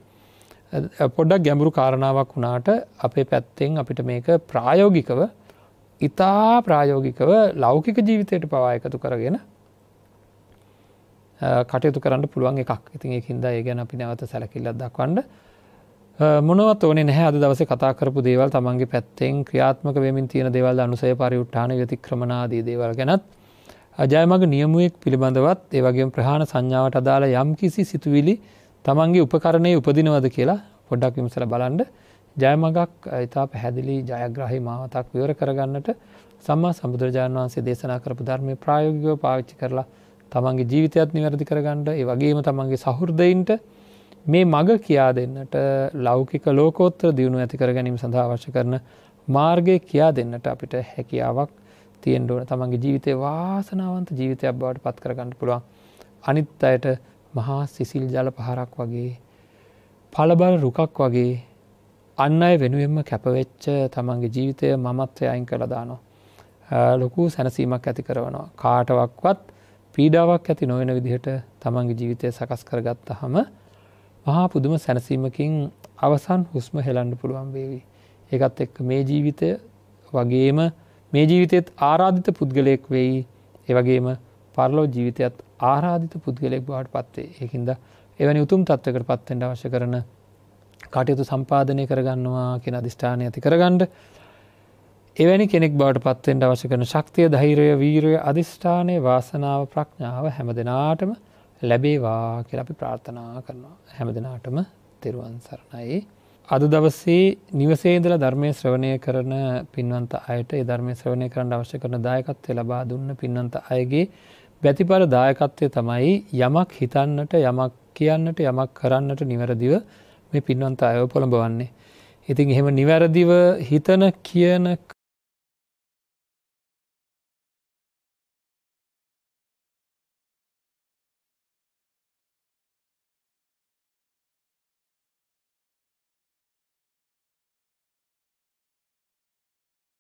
පොඩ්ඩක් ගැඹුරු කාරණාවක් වුණාට අපේ පැත්තෙන් අපිට මේක ප්‍රායෝගිකව, ඉතා ප්‍රායෝගිකව ලෞකික ජීවිතයට පවා එකතු කරගෙන කටයුතු කරන්න පුළුවන් එකක්. ඉතින් ඒකින්ද ඒ ගැන අපි නැවත සැලකිල්ලක් දක්වන්න මොනවත් ඕනේ නැහැ. අද දවසේ කතා කරපු දේවල් තමන්ගේ පැත්තෙන් ක්‍රියාත්මක වෙමින් තියෙන දේවල්, අනුසය පරිඋත්ථාන ව්‍යතික්‍රමන ආදී දේවල් ගැනත්, ජයමග නියමුවෙක් පිළිබඳවත්, ඒ වගේම ප්‍රහාණ සංඥාවට අදාළ යම්කිසි සිතුවිලි තමන්ගේ උපකරණයේ උපදිනවද කියලා පොඩ්ඩක් විමසලා බලන්න. ජයමගක් ඉතා පැහැදිලි ජයග්‍රාහී මාවතක් විවර කරගන්නට සම්මා සම්බුදුරජාණන් වහන්සේ දේශනා කරපු ධර්මයේ ප්‍රායෝගිකව පාවිච්චි කරලා තමන්ගේ ජීවිතයත් නිවැරදි කරගන්න, ඒ වගේම තමන්ගේ සහෘදයින්ට මේ මග කියා දෙන්නට, ලෞකික ලෝකෝත්තර දියුණුව ඇති කර ගැනීම සඳහා අවශ්‍ය කරන මාර්ගය කියා දෙන්නට අපිට හැකියාවක් තියෙන්න ඕන. තමන්ගේ ජීවිතේ වාසනාවන්ත ජීවිතයක් බවට පත් කරගන්න පුළුවන්. අනිත් අයට මහා සිසිල් ජල පහරක් වගේ, පළබල රුකක් වගේ අන් අය වෙනුවෙන්ම කැපවෙච්ච තමන්ගේ ජීවිතය මමත්වය අයින් කරලා දානවා. ලොකු සැනසීමක් ඇති කරනවා. කාටවත් පීඩාවක් ඇති නොවන විදිහට තමන්ගේ ජීවිතය සකස් කරගත්තාම මහා පුදුම සැනසීමකින් අවසන් හුස්ම හෙලන්න පුළුවන් වේවි. ඒකත් එක්ක මේ ජීවිතය වගේම මේ ජීවිතයත් ආරාධිත පුද්ගලයෙක් වෙයි. ඒ වගේම පරලොව ජීවිතයත් ආරාධිත පුද්ගලයෙක් බවට පත් වෙයි. ඒකින්ද එවැනි උතුම් තත්වයකට පත් වෙන්න අවශ්‍ය කරන කටයුතු සම්පාදනය කරගන්නවා කියන අදිෂ්ඨානය ඇති කරගන්න, එවැනි කෙනෙක් බවට පත් වෙන්න අවශ්‍ය කරන ශක්තිය, ධෛර්යය, වීරිය, අදිෂ්ඨානය, වාසනාව, ප්‍රඥාව හැම දිනාටම ලැබේවා කියලා අපි ප්‍රාර්ථනා කරනවා. හැම දිනාටම තෙරුවන් සරණයි. අද දවසේ නිවසේ ඉඳලා ධර්මයේ ශ්‍රවණය කරන පින්වන්ත අයට ඒ ධර්මයේ ශ්‍රවණය කරන්න අවශ්‍ය කරන දායකත්වය ලබා දුන්න පින්වන්ත අයගේ ප්‍රතිපල දායකත්වය තමයි යමක් හිතන්නට, යමක් කියන්නට, යමක් කරන්නට නිවැරදිව මේ පින්වන්ත අයව පොළඹවන්නේ. ඉතින් එහෙම නිවැරදිව හිතන, කියන,